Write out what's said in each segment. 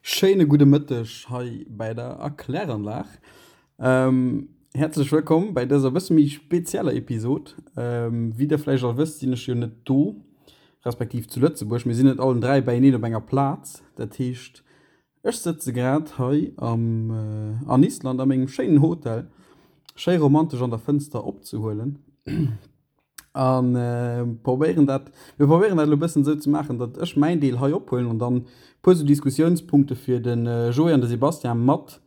Schéine gudde Mëtteg hei bäi der Erkläranlag. Häerzlech wëllkomm bäi dëser bësse méi spezieller Episod. Wéi der vläicht all wësst, sinn ech jo net do, respektiv zu Lëtzebuerg. Mir sinn net allen 3 bäieneen op enger Plaz. Dat heescht, ech sëtze grad hei am an Island a mengem schéinen Hotel, schéi romantesch an der Fënster opzehuelen. An probéieren dat, mir probéieren dat elo e bëssen esou ze maachen, datt ech mäin Deel hei ophuelen an dann e puer esou Diskussiounspunkte fir de Joé an de Sebastian mat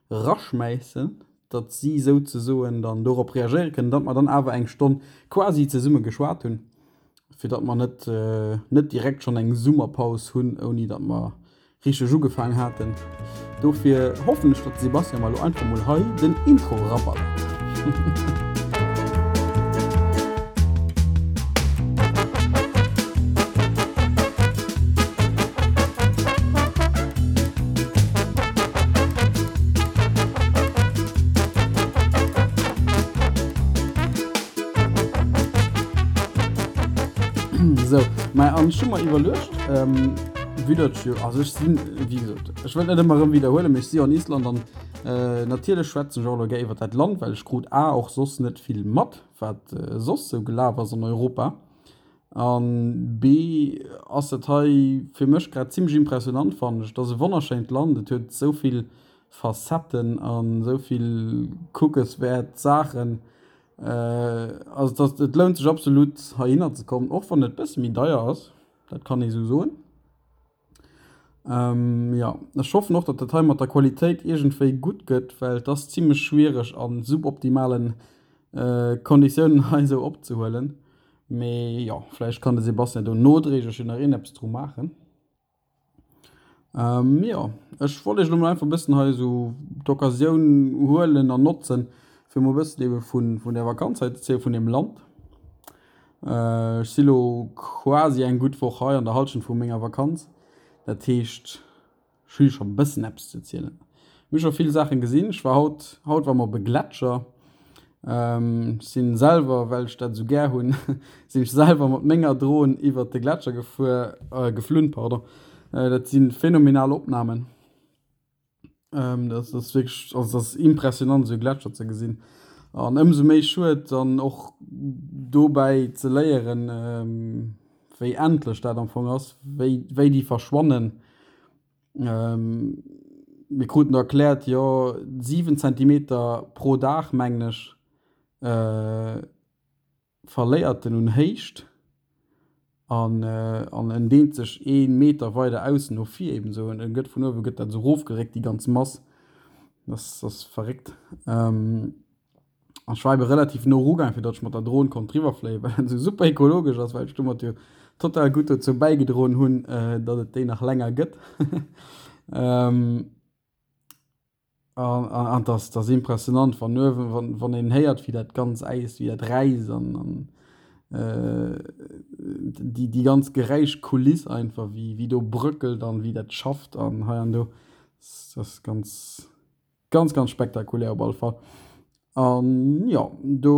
raschmäissen, datt si souzesoen dann dorop reagéiere kënnen, datt mer dann awer eng Stonn quasi zesumme geschwat hunn, fir datt mer net, net direkt schonn eng Summerpaus hunn, ouni datt mer Richteg ugefaang haten. Dofir hoffen ech, datt de Sebastian mer elo einfach mol hei den Intro eraballert. Sou, mä an ech hu mer iwwerluecht, Vue datt jo, also ech sinn, wéi gesot, ech wëll net ëmmer erëm widderhuelen, mee ech si jo an Island an natierlech schwätzen ech och elo gär iwwer dat Land, well ech krut a och soss net vill mat, wat soss sou gelaf ass an Europa an b ass dat hei fir mech grad zimmlech impressionant, fannen ech. Et ass e wonnerschéint Land, et huet esou vill Facetten an esou vill kuckeswäert Saachen. Also et ass, et lount sech absolut heihinner ze kommen, och wann et e bësse méi deier ass. Dat kann ee sou soen. Ähm, jo, ech hoffen och, datt dat hei mat der Qualitéit iergendwéi gutt gëtt, well et ass zimmlech schwiereg a suboptimalen Konditiounen hei esou opzehuelen. Mee jo, vläicht kann de Sebastian do nodréiglech jo nach iergendeppes dru maachen. Jo, ech wollt iech elo mol einfach e bëssen hei esou d'Occasioun huelen an notzen, fir mol e bëssen ebe vun, vun där Vakanz hei ze erzielen, vun deem Land. Ech si lo quasi eng gutt Woch hei, an der Hallschent vu menger Vakanz. Dat heescht, ech hu scho e bëssen eppes ze erzielen. Mir hu scho vill Saachen gesinn. Ech war haut, haut war mer op e Gletscher. Ech sinn selwer, well ech dat esou gär hunn, sinn ech selwer mat menger Dron iwwert de Gletscher gefuer, geflunn, pardon. Dat si phänomenal Opnamen. Dat ass wierklech, also dat ass impressionant esou e Gletscher ze gesinn. An ëmsou méi schued dann och dobäi ze léieren, wéi endlech dat am Fong ass, wéi wéi déi verschwannen. Mir kruten do erkläert, jo 7 Zentimeter pro Dag, mengen ech, verléiert en un Héicht an an en deent sech ee Meter weider aus no vir eben esou. En gëtt vun uewe gëtt dat esou erofgeréckt, déi ganz Mass. Dat ass verréckt. An ech war ebe relativ no erugaang, fir datt ech mat der Dron konnt driwwer fléien, well dat esou super ekologesch ass, well ech domat jo total gutt dozou bäigedroen hunn, datt et déi nach länger gëtt. An an et ass, et ass impressionant, wann uewen, wann, wann een héiert, wéi dat ganz Äis, wéi dat räisst an an déi, déi ganz Geräischkuliss einfach, wéi, wéi do bröckelt an wéi dat schafft an hei an do, dat ass ganz. Ganz ganz spektakulär op alle Fall. An jo, do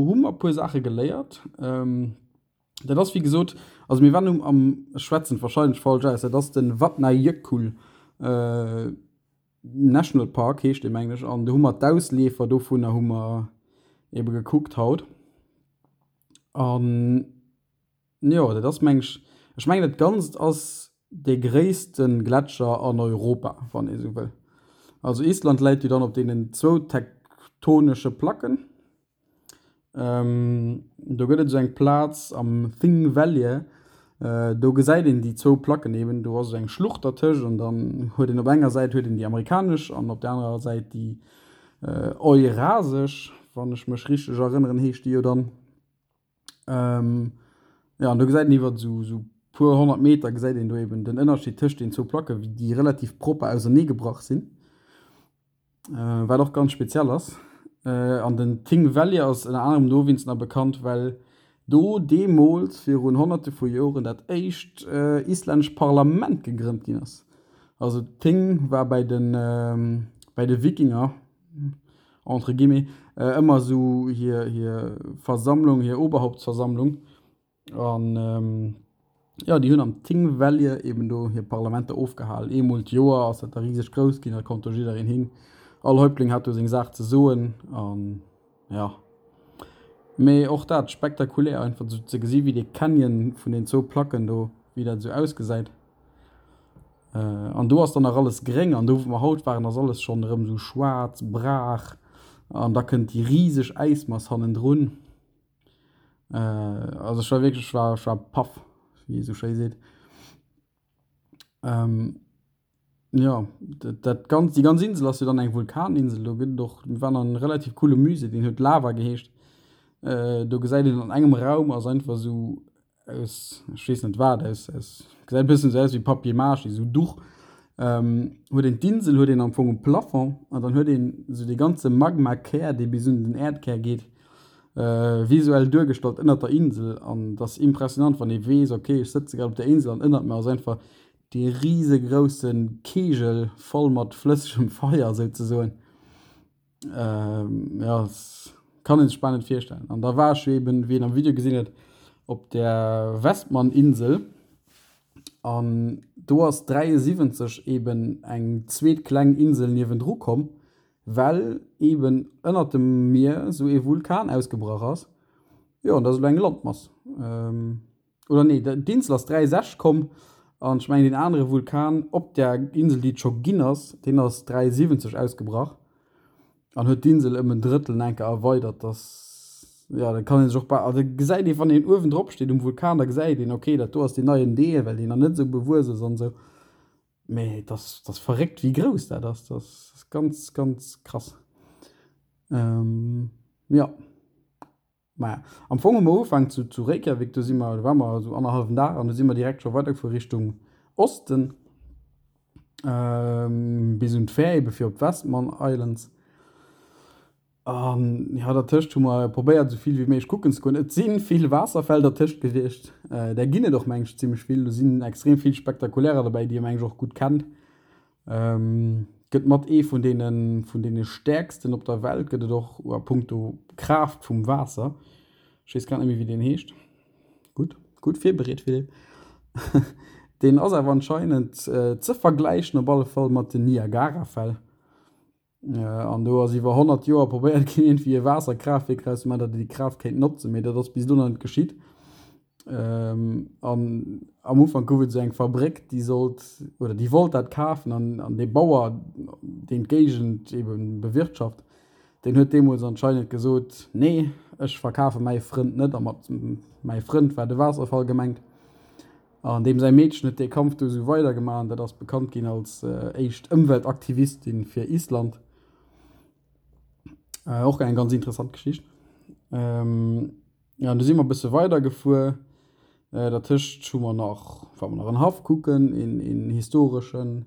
hu mer e puer Saache geléiert. Dat ass wéi gesot, also mir waren um am, ech schwätzen et warscheinlech falsch aus, dat ass de Vatnajökull National Park heescht dee mengen ech, an do hu mer d'Ausleefer dovunner hu mer ebe gekuckt haut. An Jo, dat ass meng ech, ech mengen dat Ganzt ass dee gréisste Gletscher an Europa, wann ee sou wëll. Also Island läit jo dann op deenen zwou tektonesche Placken. Do gëtt et esou eng Plaz am Thingvellir, do gesäit een déi zwou Placken eben. Do ass esou eng Schlucht dertëscht an dann huet een op enger Säit huet een déi amerikanesch an op der anerer Säit déi eurasesch, wann ech mech richteg erënneren, heescht déi jo dann. Jo, an do gesäit een iwwer esou esou puer 100 Meter gesäit een do eben den Ënnerscheed tëscht den zwou Placke wéi déi relativ propper ausernee gebrach sinn. Wat och ganz speziell ass. An den Thingvellir ass ënner anerem dowéinst nach bekannt, well do deemools virun honnerte vu Joren dat éischt islännescht Parlament gegrënnt ginn ass. Also d'Thing war bäi de bäi de Wikinger entre guillemets, ëmmer esou hir, hir Versammlung, hir Oberhauptsversammlung. An. Jo, déi hunn am Thingvellir eben do hir Parlamenter ofgehal. Eemol d'Joer ass dat da riseg grouss ginn, da konnt do jiddereen hin. All Häuptling hat do seng Saach ze soen an jo. Mee och dat spektakulär einfach esou ze gesi wéi dee Canyon vun den zwou Placken do, wéi dat esou ausgesäit. An do ass dann nach alles gréng an do wou mer haut waren ass alles schonn erëm esou schwaarz, Brach an da kënnt déi riseg Äismass hannendrun. Also ech war wierklech, ech war, ech war paff, wéi ee sou schéi seet. Jo, dat dat ganz, déi ganz Insel ass jo dann eng Vulkaninsel. Do gëtt et och, mir waren an engem relativ coole Musée, deen huet Lava geheescht. Do gesäit een an engem Raum ass einfach esou aus, ech weess net wat, aus, aus, gesäit e bëssen esou aus wéi Papier mâché, esou Duch, huet een d'Insel huet een am Fong um Plafond an dann huet een esou dee ganze Magmakär, dee bis un den Äerdkär geet, visuell duergestallt ënnert der Insel. An dat ass impressionant, wann ee weess, okay, ech sëtze grad op der Insel an ënnert mir ass einfach dee risegrousse Kegel voll mat flëssegem Feier souzesoen. Jo, kann een sech bal net virstellen. An da war ech jo eben, wéi een am Video gesinn huet, op der Westman-Insel. An do ass 73 eben eng zweet kleng Insel niewendru komm, well eben ënnert dem Mier esou ee Vulkan ausgebrach ass. Jo, an dat ass elo eng Landmass. Oder nee, d'Insel ass 63 komm an ech mengen deen anere Vulkan op der Insel, déi et scho ginn ass, deen ass 73 ausgebrach an huet d'Insel ëm en Drëttel enker erweidert. Dass, jo, da kann ee sech och bal, also gesäit ee wann een uewen drop steet um Vulkan, da gesäit een, okay, dat do ass deen neien Deel, well deen nach net esou bewuess ass an esou. Mee et ass, et ass verréckt wéi grouss dat ass. Dat ass ganz, ganz krass. Jo. Maja, am Fong hu mer ugefaangen zu, zu Reykjavik, do si mer, do ware mer esou annerhallwen Dag an du si mer direkt scho weidergefuer Richtung Osten, bis un d'Fähr ebe fir op d'Westman Islands. An jo, dertëscht hu mer probéiert esou vill wéi méiglech kucken ze goen. Et si vill Waasserfäll dertëscht gewiescht, där ginn et och meng ech zimmlech vill. Do sinn extrem vill spektakulärer derbäi, déi ee meng ech och gutt kennt. Gëtt mat ee vun deene vun deene stäerksten op der Welt gëtt et och a punkto Kraaft vum Waasser. Ech weess grad net méi wéi deen heescht. Gutt, gutt virbereet Philippe. Deen ass awer anscheinend ze vergläichen op alle Fall mat den Niagarafäll. An do ass iwwer 100 Joer probéiert ginn iergendwéi e Waasserkraaftwierk draus ze maachen, datt een déi Kraaft kéint notzen, mee dat ass bis elo nach net geschitt. An am Ufank gouf et esou eng Fabréck, déi sollt oder déi wollt dat kafen an an dee Bauer, deen d'Géigend ebe bewirtschaft, deen huet deemools anscheinend gesot, Nee, ech verkafe mäi Frënd net. A mat mäi Frënd war de Waasserfall gemengt. An deem säi Meedchen huet dee Kampf du esou weidergemaach an dat ass bekannt ginn als éischt Ëmweltaktivistin fir Island. Och eng ganz interessant Geschicht. Jo, an du si mer e bësse weidergefuer. Dertëscht hu mer nach, ware mer nach en Haff kucken, een, een historeschen.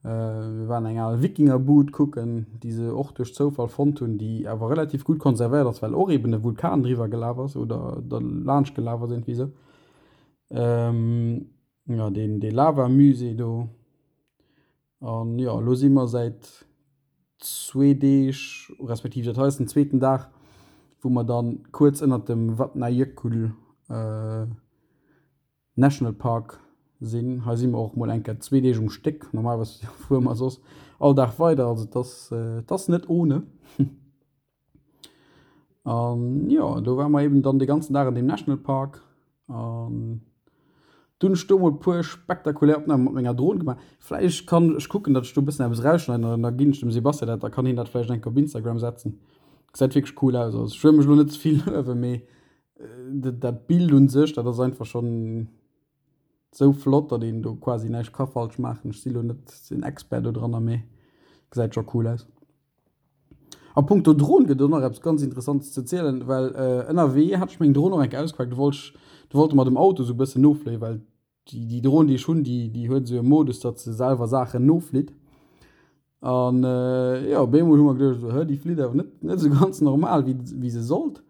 Mir waren eng al Wikingerbud kucken, déi se och duerch Zoufall fonnt hunn, déi awer relativ gutt konservéiert ass, well och eben e Vulkan driwwer gelaf ass oder derlaanscht gelaf ass, iergendwéi esou. Jo, deen, dee Lavamusée do. An jo, elo si mer säit zwee Deeg, respektiv dat hei ass den zweeten Dag, wou mer dann kuerz ënnert dem Vatnajökull National Park sinn. Hei si mer och mol eng Kéier zwee Deeg um Stéck. Normalerweis fuere mer soss all Dag weider, also et ass, et ass net ohne. An jo, do ware mer eben dann de ganzen Dag an deem National Park an dunn hunn ech do mol puer spektakulär Opnamen mat menger Dron gemaach. Vläicht kann ech kucken, datt ech do e bëssen eppes erausschneiden an da ginn ech dem Sebastian dat, da kann hien dat vläicht eng Kéier op Instagram setzen. Gesäit wierklech cool aus. Also ech wëll mech elo net ze vill luewen, mee dat Bild un sech, dat ass einfach schonn Sou flott datt een do quasi näischt ka falsch maachen. Ech si lo net den Expert do dranner mee gesäit scho cool aus. A punkto Dron gëtt et och nach eppes ganz Interessantes ze zielen, well ënnerwee hat ech meng Dron och eng Kéier ausgepaakt, do wollt ech, do wollte mer dem Auto sou e bëssen nofléien, well déi déi Dron déi ech hunn, déi déi huet esou e Modus, datt se selwer Saachen noflitt. An jo, op eemol hu mer geduecht, esou, hë déi flitt awer net net esou ganz normal wéi wéi se sollt.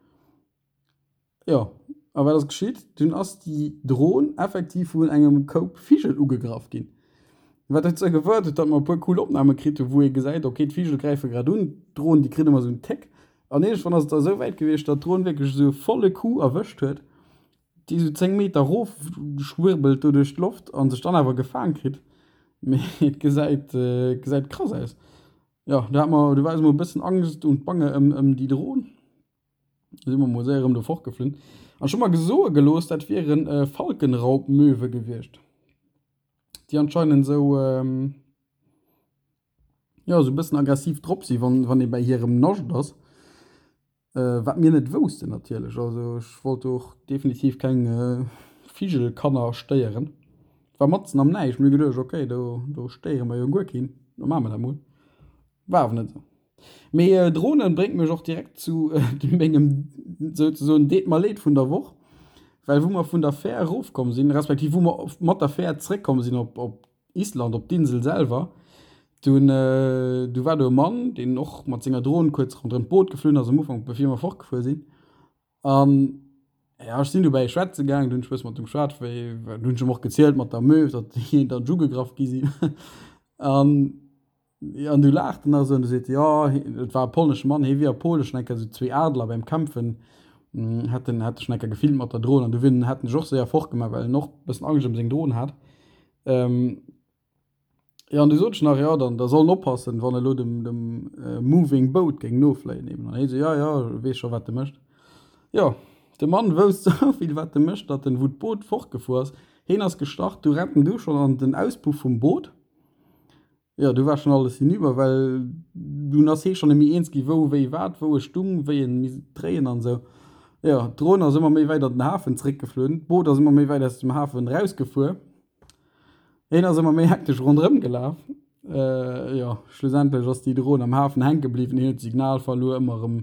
Jo, a wat ass geschitt? Dunn ass déi Dron effektiv vun engem Koup Vigel ugegraff ginn. Wat dozou gefouert huet, datt mer e puer cool Opname kritt hunn, wou ee gesäit, ok, d'Vigel gräife grad un, d'Dron, déi kritt ëmmer esou en Téck. An iergendwann ass et da esou wäit gewiescht, datt d'Dron wierklech esou e volle Coup erwëscht huet. Déi esou 10 Meter erof schwirbelt do duerch d'Loft an sech dann awer gefaang kritt. Mee et gesäit, gesäit krass aus. Jo, do hat mer, do war eis mol e bëssen Angst und Bange ëm, ëm déi Dron. Do si mer mol séier erëm do fortgeflunn. An ech hu mer gesoe gelooss, dat wieren Falkenraubmöwe gewiescht, déi anscheinend esou, jo, esou e bëssen aggressiv drop si wann, wann ee bäi hirem Nascht ass. Wat mir net woussten natierlech. Also ech wollt do och definitiv keng Vigelkanner stéieren. Et war matzen am Näischt. Mir hu geduecht, okay, do do stéiere mer jo guer keen, da maache mer dat mol. War awer net esou. Mee Dronen bréngt mech och direkt zu mengem souzesoen Deet mer leed vun der Woch, well wou mer vun der Fähr erofkomm sinn, respektiv wou mer mat der Fähr zréckkomm sinn op op Island, op d'Insel selwer, dunn du war do e Mann, deen och mat senger Dron kuerz ronderëm d'Boot geflunn ass am Ufank, bevir mer fortgefuer sinn. An ja, ech sinn dobäi schwätze gaangen, du hunn ech e bësse mat em geschwat, wéi, du hunn ech em och gezielt mat der Möw, datt déi dann ugegraff gi sinn. An An du laacht en nach esou an du seet, jo, et war e polnesche Mann, hie wier a Pole schonn eng Kéier esou zwee Adler beim Kämpfen hätt en hätt e schonn eng Kéier gefilmt mat der Dron an du wier en hätt en sech och séier fortgemaach, well en och e bëssen Angscht ëm seng Dron hat. Jo, an du sot ech nach, jo, dann da soll en oppassen, wann elo dem dem Moving Boat géing nofléien eben. An hie sou, jo, jo, e weess scho wat e mécht. Jo, de Mann wousst esou vill wat e mécht, datt en, wou d'Boot fortgefuer ass, hien ass gestart, du rennt en du schonn an den Auspuff vum Boot. Jo, du war schon alles hinüber, well dunn ass hee schon net méi eens gi wou, wéi, wat, wou e stung, wéi en misst dréien an esou. Jo, d'Dron ass ëmmer méi wäit an den Hafen zréckgeflunn, d'Boot ass ëmmer méi wäit aus dem Hafen erausgefuer, heen ass ëmmer méi hektesch ronderëm gelaf. Jo, schlussendlech ass déi Dron am Hafen hänke bliwwen, hien huet d'Signal verluer, ëmmer erëm,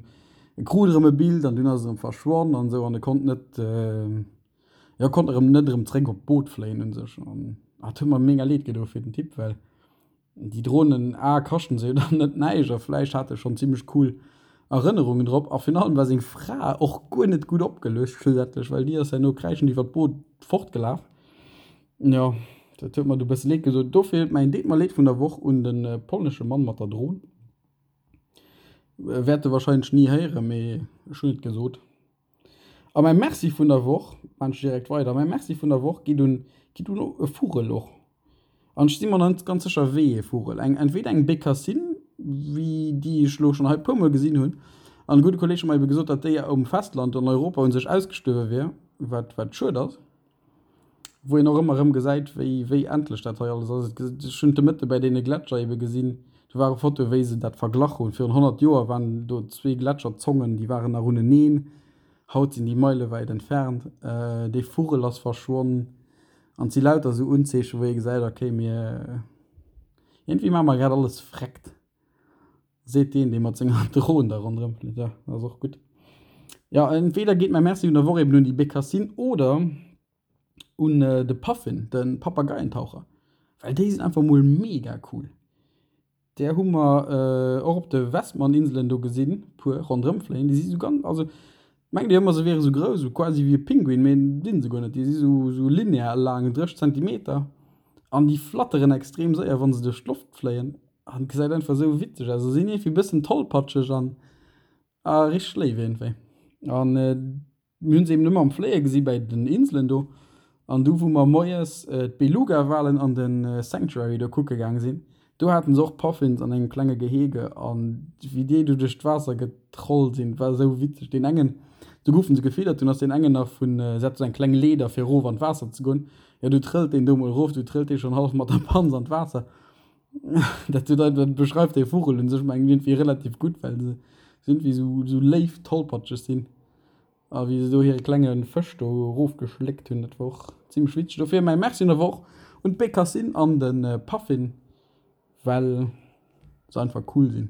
e krut erëm e Bild an dunn ass et erëm verschwonn an esou an e konnt net, Jo, konnt erëm net erëm zréck op d'Boot fléien un sech an et huet mer mega leed gedo fir den Typ, well déi Dronen a kaschten se jo dann net näischt a vläicht hat e schonn zimmlech cool Erënnerungen drop a virun allem war seng Fra och guer net gutt opgeluecht schlussendlech, well déi ass herno kräischend iwwer d'Boot fortgelaf. Jo, dat huet mer du bësse leed gedo. Dofir mäin deet mer leed vun der Woch un de polnesche Mann mat der Dron. Wäert e warscheinlech ni héieren, mee ech hunn et gesot. A mäi Merci vun der Woch, maan ech direkt weider, mäi Merci vun der Woch geet un, geet un e Vugel och. An ech si mer net ganz sécher wéi ee Vugel. Eng, entweder eng Bécassine, wéi déi ech elo schonn hei e puermol gesinn hunn. An e gudde Kolleeg huet mer ebe gesot, datt déi um Festland an Europa u sech ausgestuerwe wier, wat, wat schued ass. Wou een och ëmmer erëm gesäit, wéi, wéi endlech dat hei alles ass. Et, ech hunn de Mëtte bäi deene Gletscher ebe gesinn, do ware Fotoe wéi se dat verglach hunn. Virun 100 Joer waren do zwee Gletscherzongen, déi waren nach uneneen. Haut sinn déi meilewäit entfernt. Dee Vugel ass verschwonn. An et si lauter esou Unzeechen, wou ee gesäit, okay, mir, iergendwéi maache mer grad alles vreckt. Seet deen, dee mat senger Dron da ronderëm flitt. Ja, dat ass och gutt. Ja, entweder geet mäi Merci vun der Woch eben un déi Bécassine oder un de Puffin, de Papageientaucher. Well déi sinn einfach mol mega cool. Där hu mer och op de Westman-Inselen do gesinn, puer ronderëm fléien. Déi si sou ganz, also mengt Dir ëmmer se wiere sou grouss, sou quasi wéi e Pinguin, mee sinn se guer net. Déi si sou, sou linear laang, 30 Zentimeter an déi flatteren extrem séier, wa se duerch d'Loft fléien. An gesäit einfach esou witzeg aus. Se sinn iergendwéi bëssen tollpatscheg an a richteg léif iergendwéi. An mir hunn se eben ëmmer am Fléie gesi bäi den Inselen do. An du wou mer moies d'Beluga-Walen an de Sanctuary do kucke gaang sinn, do haten se och Puffins an engem klenge Gehege. An wéi déi do duerch d'Waasser getrollt sinn, war esou witzeg. Deen engen, do goufen se gefiddert, dunn ass deen engen nach vun, se hat esou eng kleng Leeder fir erof an d'Waasser ze goen, jo du trëllt deen do mol erof, du trëllt dee schonn hallef mat der Panz an d'Waasser. Dat dat beschreift dee Vugel un sech mengen iergendwéi relativ gutt, well se iergendwéi sou sou léif tollpatscheg sinn. A wéi se do hire klenge Fësch do erofgeschléckt hunn, dat war och zimmlech witzeg. Dofir mäi Merci un der Woch un d'Bécassine an de Puffin, well se einfach cool sinn.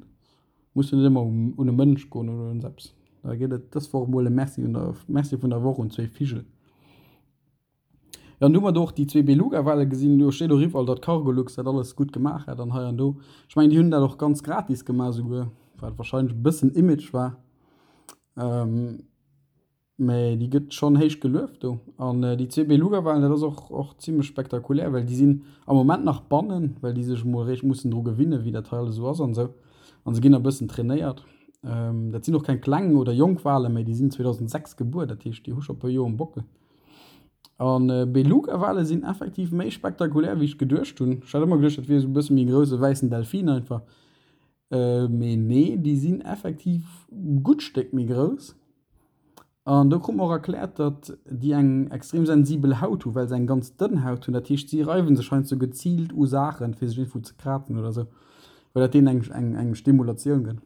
Muss jo net ëmmer un e Mënsch goen oder un eppes. Da geet et dës Woch emol e Merci un der Merci vun der Woch un zwéi Vigel. Jo, an du hu mer do och déi zwee Beluga-Wale gesinn. Do steet och iwwerall, datt Cargolux dat alles gutt gemaach hätt an hei an do. Ech mengen, déi hunn dat och ganz gratis gemaach esouguer, wat warscheinlech e bëssen Image war. Mä déi gëtt schonn héich gelueft do. An déi zwee Beluga-Walen, dat ass och, och zimlech spektakulär, well déi sinn am Moment nach bannen, well déi sech emol eréischt mussen dru gewinnen, wéi dat hei alles esou ass an esou. An se ginn nach e bëssen trainéiert. Dat sinn och keng kleng oder jonk Walen méi, déi sinn 2006 gebuer, dat heescht, déi hu scho e puer Joer um Bockel. An Beluga-Wale sinn effektiv méi spektakulär, wéi ech geduecht hunn. Ech hat ëmmer geduecht, dat wier esou e bësse méi e grousse wäissen Delfin einfach. Mee nee, déi sinn effektiv e gutt Stéck méi grouss. An do krut mer och erkläert, datt déi eng extrem sensibel Haut hu well se eng ganz dënn Haut hunn. Dat heescht, si reiwe sech heiansdo geziilt u Saachen, fir sech iergendwou ze krazen oder esou, well dat deenen eng, eng Stimulatioun gëtt.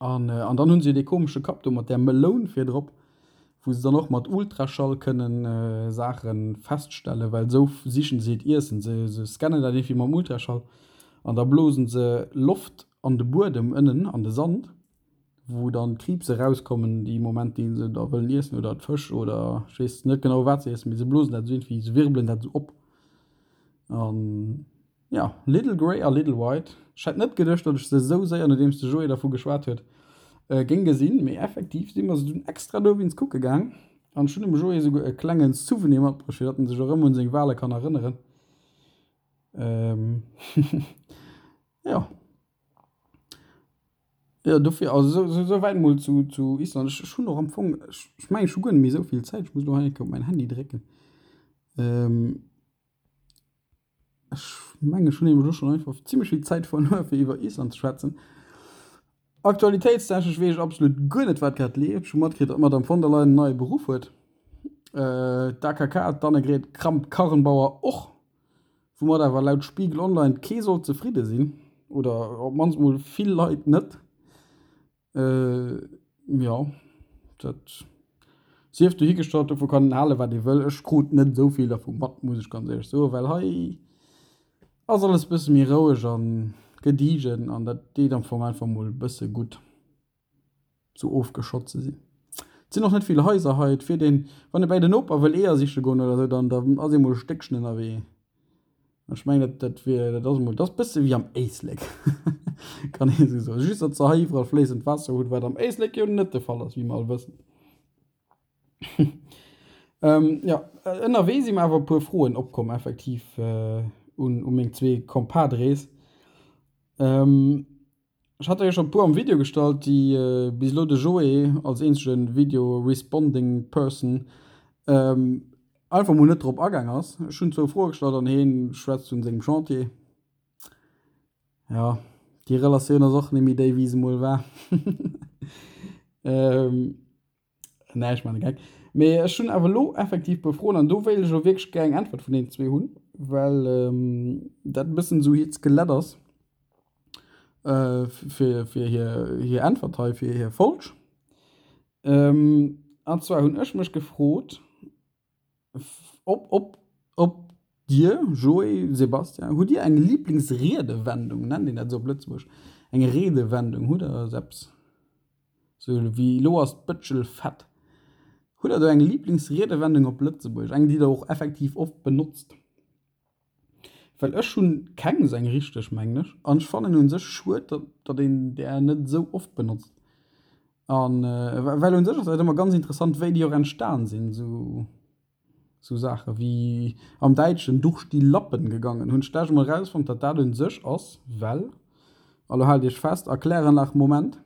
An, an dann hunn se jo dee komesche Kapp do mat där Meloun virdrop, wou se dann och mat Ultraschall kënnen Saache feststellen, well esou sichen se hiert Iessen. Se, se scannen dat iergendwéi mam Ultraschall an da blosen se Loft an de Buedem ënnen, an de Sand. wou dann d'Kriibse rauskommen dee Moment dee se da wëllen iessen oder d'Fësch oder ech weess net genau wat se iessen, mee se blosen dat esou iergendwéi, se wirbelen dat esou op. An jo, Little Grey a Little White, ech hätt net geduecht, datt ech se esou séier, nodeems de Joé dervu geschwat huet, géing gesinn, mee effektiv si mer se dunn extra dowéinst kucke gaang an ech hunn dem Joé esouguer e klenge Souvenir matbruecht, fir datt en sech erëm un seng Wale kann erënneren. Jo. Jo, dofir, also sou, sou wäit mol zu, zu Island. Ech, ech hunn och am Fong, ech, ech mengen, ech hu guer net méi esou vill Zäit. Ech muss elo hei eng Kéier op mäin Handy drécken. Ech mengen, ech hunn nämlech elo schonn einfach zimmlech vill Zäit verluer, fir iwwer Island ze schwätzen. Aktualitéitstechnesch weess ech absolut guer net, wat grad leeft. Ech hu matkritt, datt d'Madame von der Leyen en neie Beruff huet. D'AKK, d'Annegret Kramp-Karrenbauer och. Woumat awer laut Spiegel Online kee sollt zefridde sinn, oder op d'mannst mol vill Leit net. Jo, dat sief dohigestallt, dovu kann een halen, wat ee wëll. Ech krut net esou vill dervu mat, muss ech ganz éierlech soen, well hei ass alles e bësse méi roueg a gediegen an dat deet am Fong einfach mol e bësse gutt. Sou ofgeschott ze sinn. Et sinn och net vill Haiser hei. Et fiert een, wann ee bäi den Noper wëll Eeër siche goen oder sou, dann dann ass ee mol e Stéckchen ënnerwee. Ech mengen, dat dat wier, dat ass emol, dat ass bësse wéi am Éislek, kann ee sou soen. Just datt se hei iwwerall fléissend Waasser hunn, wat am Éislek jo net de Fall ass, wéi mer all wëssen. Jo, ënnerwee si mer awer e puer Froen opkomm effektiv un u meng zwee Compadres. Ech hat der jo schon e puer am Video gestallt, déi bis elo de Joé als eenzegen Video responding person einfach mol net drop agaang ass. Ech hunn zwou Froe gestallt an heen schwätzt vun sengem Chantier. Jo, déi Relatioun ass och nemmi déi wéi se mol war. Nee, ech man e Geck. Mee ech hunn awer elo effektiv puer Froen an do wéilt ech elo wierklech gär eng Äntwert vun deenen zwee hunn, well dat e bëssen esou hiert Skelett ass fir, fir hir, hir Äntwert hei, fir hir Folg. An zwar hunn ech mech gefrot, Op, op, op Dir, Joé, Sebastian, hutt Dir eng Liblingsriedewendung? Nennt een dat esou op Lëtzebuergesch? Eng Redewendung, hutt Der esou eppes? Sou wéi elo ass d'Bëtschel fett. Hutt Der do eng Liblingsriedewendung op Lëtzebuergesch? Eng, déi Der och effektiv oft benotzt? Well ech hunn keng esou eng richteg, mengen ech. An ech fannen un sech schued, datt, datt een där net esou oft benotzt. An well un sech ass dat ëmmer ganz interessant, wéi déi och entstan sinn, esou, esou Saache wéi am Däitschen durch die Lappen gegangen. Hunn ech d'lescht Mol erausfonnt, datt dat un sech ass, well, a lo haalt iech fest, Erkläranlag Moment,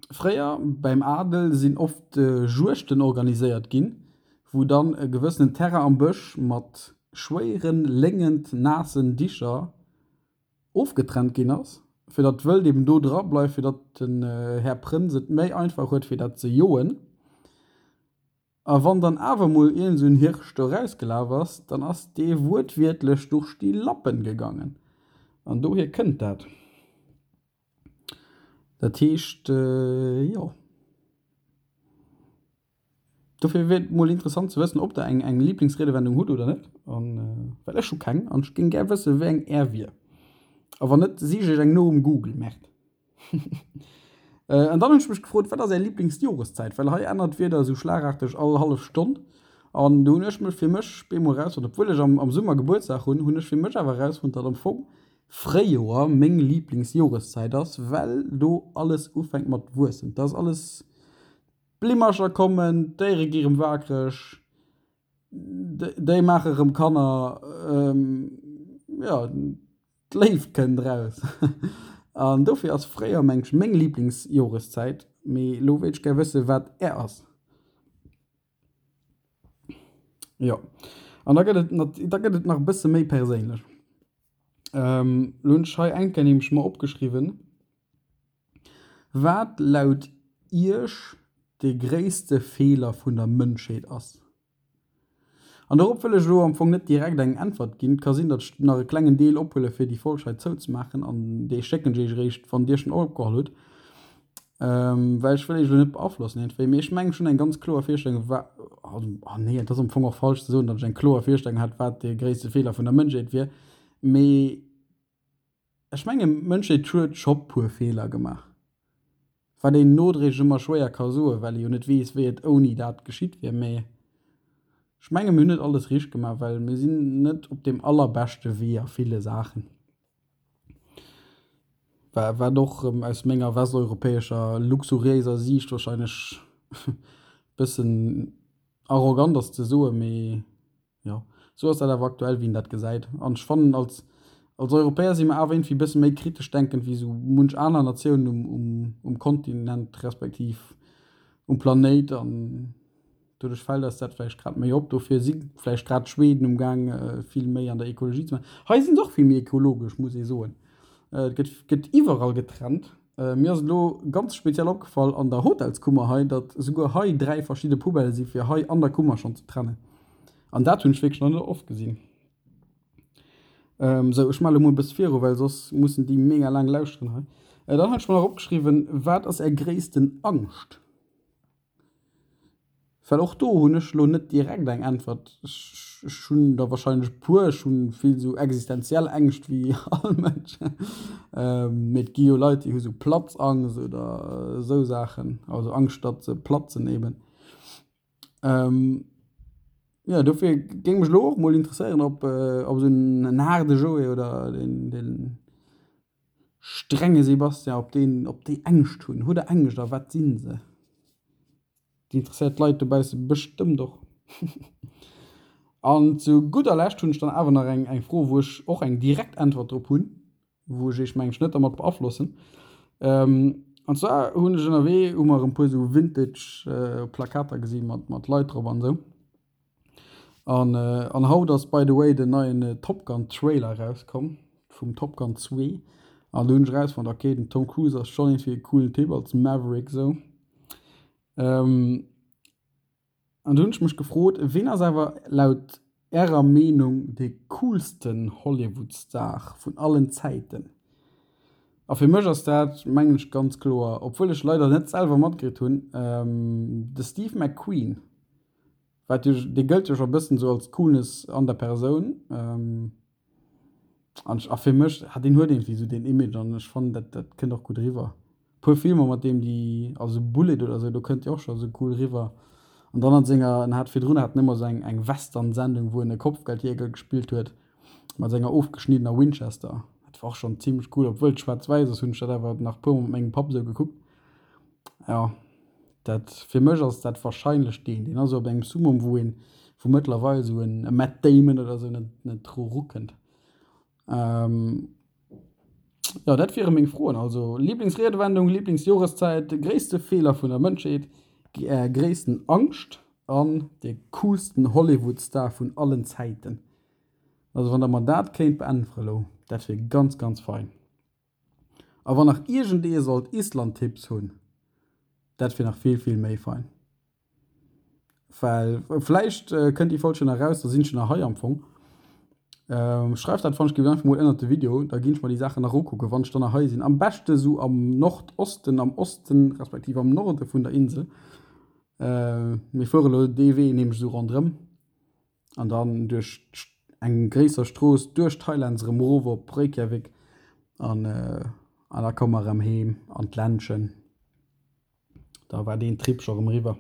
Fréier beim Adel sinn oft Juegten organiséiert ginn, wou dann e gewëssenen Terrain am Bësch mat schwéieren, léngend, naassen Dicher ofgetrennt ginn ass, fir datt d'Wëld eben do dra bleift, fir datt den Här Prënz et méi einfach huet fir dat ze joen. A wann dann awer mol iergend esou en Hirsch do rausgelaf ass, dann ass dee wuertwiertlech durch die Lappen gegangen. An dohier kënnt dat. Dat heescht, jo. Dofir wier et mol interessant ze wëssen, ob der eng eng Liblingsriedewendung hutt oder net. An well ech hu keng an ech géing gär wësse wéi eng är wier. A wann net, sich ech eng no um Google. Merde. An dann hunn ech mech gefrot, wat ass är Liblingsjoreszäit? Well hei ännert d'Wieder esou schlagarteg all hallef Stonn. An do hunn ech mech fir mech bemol erausfonnt, obwuel ech am Summer Gebuertsdag hunn, hunn ech fir mech awer erausfonnt, datt am Fong Fréijoer meng Liblingsjoreszäit ass, well do alles ufänkt mat wuessen. Et ass alles, d'Blimmercher kommen, d'Déiere gi rëm wakereg, déi maache rëm Kanner, jo. D'Léift kënnt eraus. An dofir ass Fréijoer meng ech meng Liblingsjoreszäit. Mee elo wéilt ech gär wëssen, wat är ass. Jo, an da gëtt et, da gëtt et nach e bësse méi perséinlech. Lo hunn ech hei eng Kéier nämlech mer opgeschriwwen, wat laut Iech de gréisste Feeler vun der Mënschheet ass. An dorop wëll ech elo am Fong net direkt eng Äntwert ginn. Et ka sinn, datt ech nach e klengen Deel ophuele fir déi Folg hei zouzemaachen an dee schécken ech Iech eréischt, wann Dir schonn opgeholl hutt. Well ech wëll Iech elo net beaflossen iergendwéi, mee ech mengen ech hunn eng ganz kloer Virstellung wa, also, ah nee, et ass am Fong och falsch ze soen, datt ech eng kloer Virstellung hätt, wat de gréisste Feeler vun der Mënschheet wier, mee ech mengen d'Mënschheet huet scho puer Feeler gemaach. Wat een nodréiglech ëmmer schwéier ka soen, well ee jo net weess, wéi et ouni dat geschitt wier. Mee ech menge mir hunn net alles richteg gemaach, well mir sinn net op deem allerbeschte Wee a ville Saachen. Wat och erëm aus menger westeuropäescher luxuriéiser Siicht warscheinlech e bëssen arrogant ass ze soen, mee Jo, sou ass dat awer aktuell, wéi een dat gesäit. An ech fannen, als, als Europäer si mer awer iergendwéi e bësse méi kritesch denkend wéi sou munch aner Natiounen um, um, um Kontinent respektiv um Planéit. An doduerch fält eis dat vläicht grad méi op. Dofir si vläicht grad d'Schweden umgaang, vill méi an der Ekologie ze maachen. Hei si se och vill méi ekologesch, muss ee soen. Et gëtt, gëtt iwwerall getrennt. Mir ass et elo ganz speziell opgefall an der Hotelskummer hei, datt esouguer hei 3 verschidde Poubellë si fir hei an der Kummer schonn ze trennen. An dat hunn ech wierklech nach net oft gesinn. Sou, ech maache elo mol e bësse viru, well soss mussen déi mega laang lauschteren hei. Dann hat ech mer nach opgeschriwwen, Wat ass Är gréissten Angscht? Well och do hunn ech elo net direkt eng Äntwert. Ech hunn der wahrscheinlech e puer. Ech hu vill esou existenziell Ängscht wéi all Mënsch. Mee et gi jo Leit, déi hu sou Platzangst oder esou Saachen, also Angscht, datt se platzen eben. Jo, dofir géing mech elo och mol interesséieren, ob esou en haarde Joé oder deen Strenge Sebastian, op deen, op déi Ängscht hunn. Hutt der Ängscht a wat sinn se? Déi interesséiert d'Leit dobausse bestëmmt och. An zu gudder Lescht hunn ech dann awer nach eng, eng Fro, wou ech och eng direkt Äntwert drop hunn, wou ech iech mengen ech net dermat beaflossen. An zwar hunn ech ënnerwee, hu mer e puer esou Vintage Plakater gesi mat, mat Leit drop an esou. An an haut ass by the way den neien Top Gun Trailer erauskomm vum Top Gun 2 an do hunn ech erausfonnt ok den Tom Cruise ass schonn iergendwéi e coolen Typ als Maverick sou. An do hunn ech mech gefrot, ween ass awer laut ärer Meenung de coolsten Hollywood Star vun allen Zäiten? A fir mech ass dat mengen ech ganz kloer, obwuel ech leider net selwer matkritt hunn, de Steve McQueen. Wat jo, dee gëllt jo scho bëssen esou als Coolness an der Persoun. An a fir mech, ah deen huet iergendwéi esou deen Image an ech fannen dat dat kënnt och gutt eriwwer. Puer Filmer mat deem déi, also Bullitt oder esou, do kënnt dee och scho esou cool eriwwer. An dann an senger, en hat virdrun hat en ëmmer esou eng eng Western-Sendung wou en e Kopfgeldjäger gespillt huet mat senger ofgeschniddener Winchester. Dat war och schonn zimlech cool, obwuel et schwaarz-wäiss ass, hunn ech dat awer nach puer mol mat mengem Papp esou gekuckt. Jo. Dat, fir mech ass dat wahrscheinlech deen. Deen ass esou op engem Summum, wou een, wou mëttlerweil esou en e Matt Damon oder esou net, net dru rukënnt. Jo, dat wiere meng Froen. Also Lieblingsriedewendung, Lieblingsjoreszäit, gréisste Feeler vun der Mënschheet, Är gréissten Angscht an de coolsten Hollywood-Star vun allen Zäiten. Also wann der mer dat kéint beäntwere lo, dat wier ganz, ganz fein. A wann nach iergendee sollt Island-Tipps hunn, dat wier nach vill, vill méi fein. Well vläicht kënnt déi Folg jo nach eraus, da sinn ech jo nach hei am Fong. Schreift dat wann ech géif einfach mol ënnert de Video, da ginn ech mer déi Saachen nach ukucken, wann ech dann nach hei sinn. Am beschte sou am Nordosten, am Osten respektiv am Norde vun der Insel. Mir fuere lo dee Wee nämlech esou ronderëm. An dann duerch eng gréisser Strooss duerch d'Highlands erëm erof op Reykjavik an an da komme mer erëm heem an d'Ländchen. Da war deen Trip scho erëm eriwwer.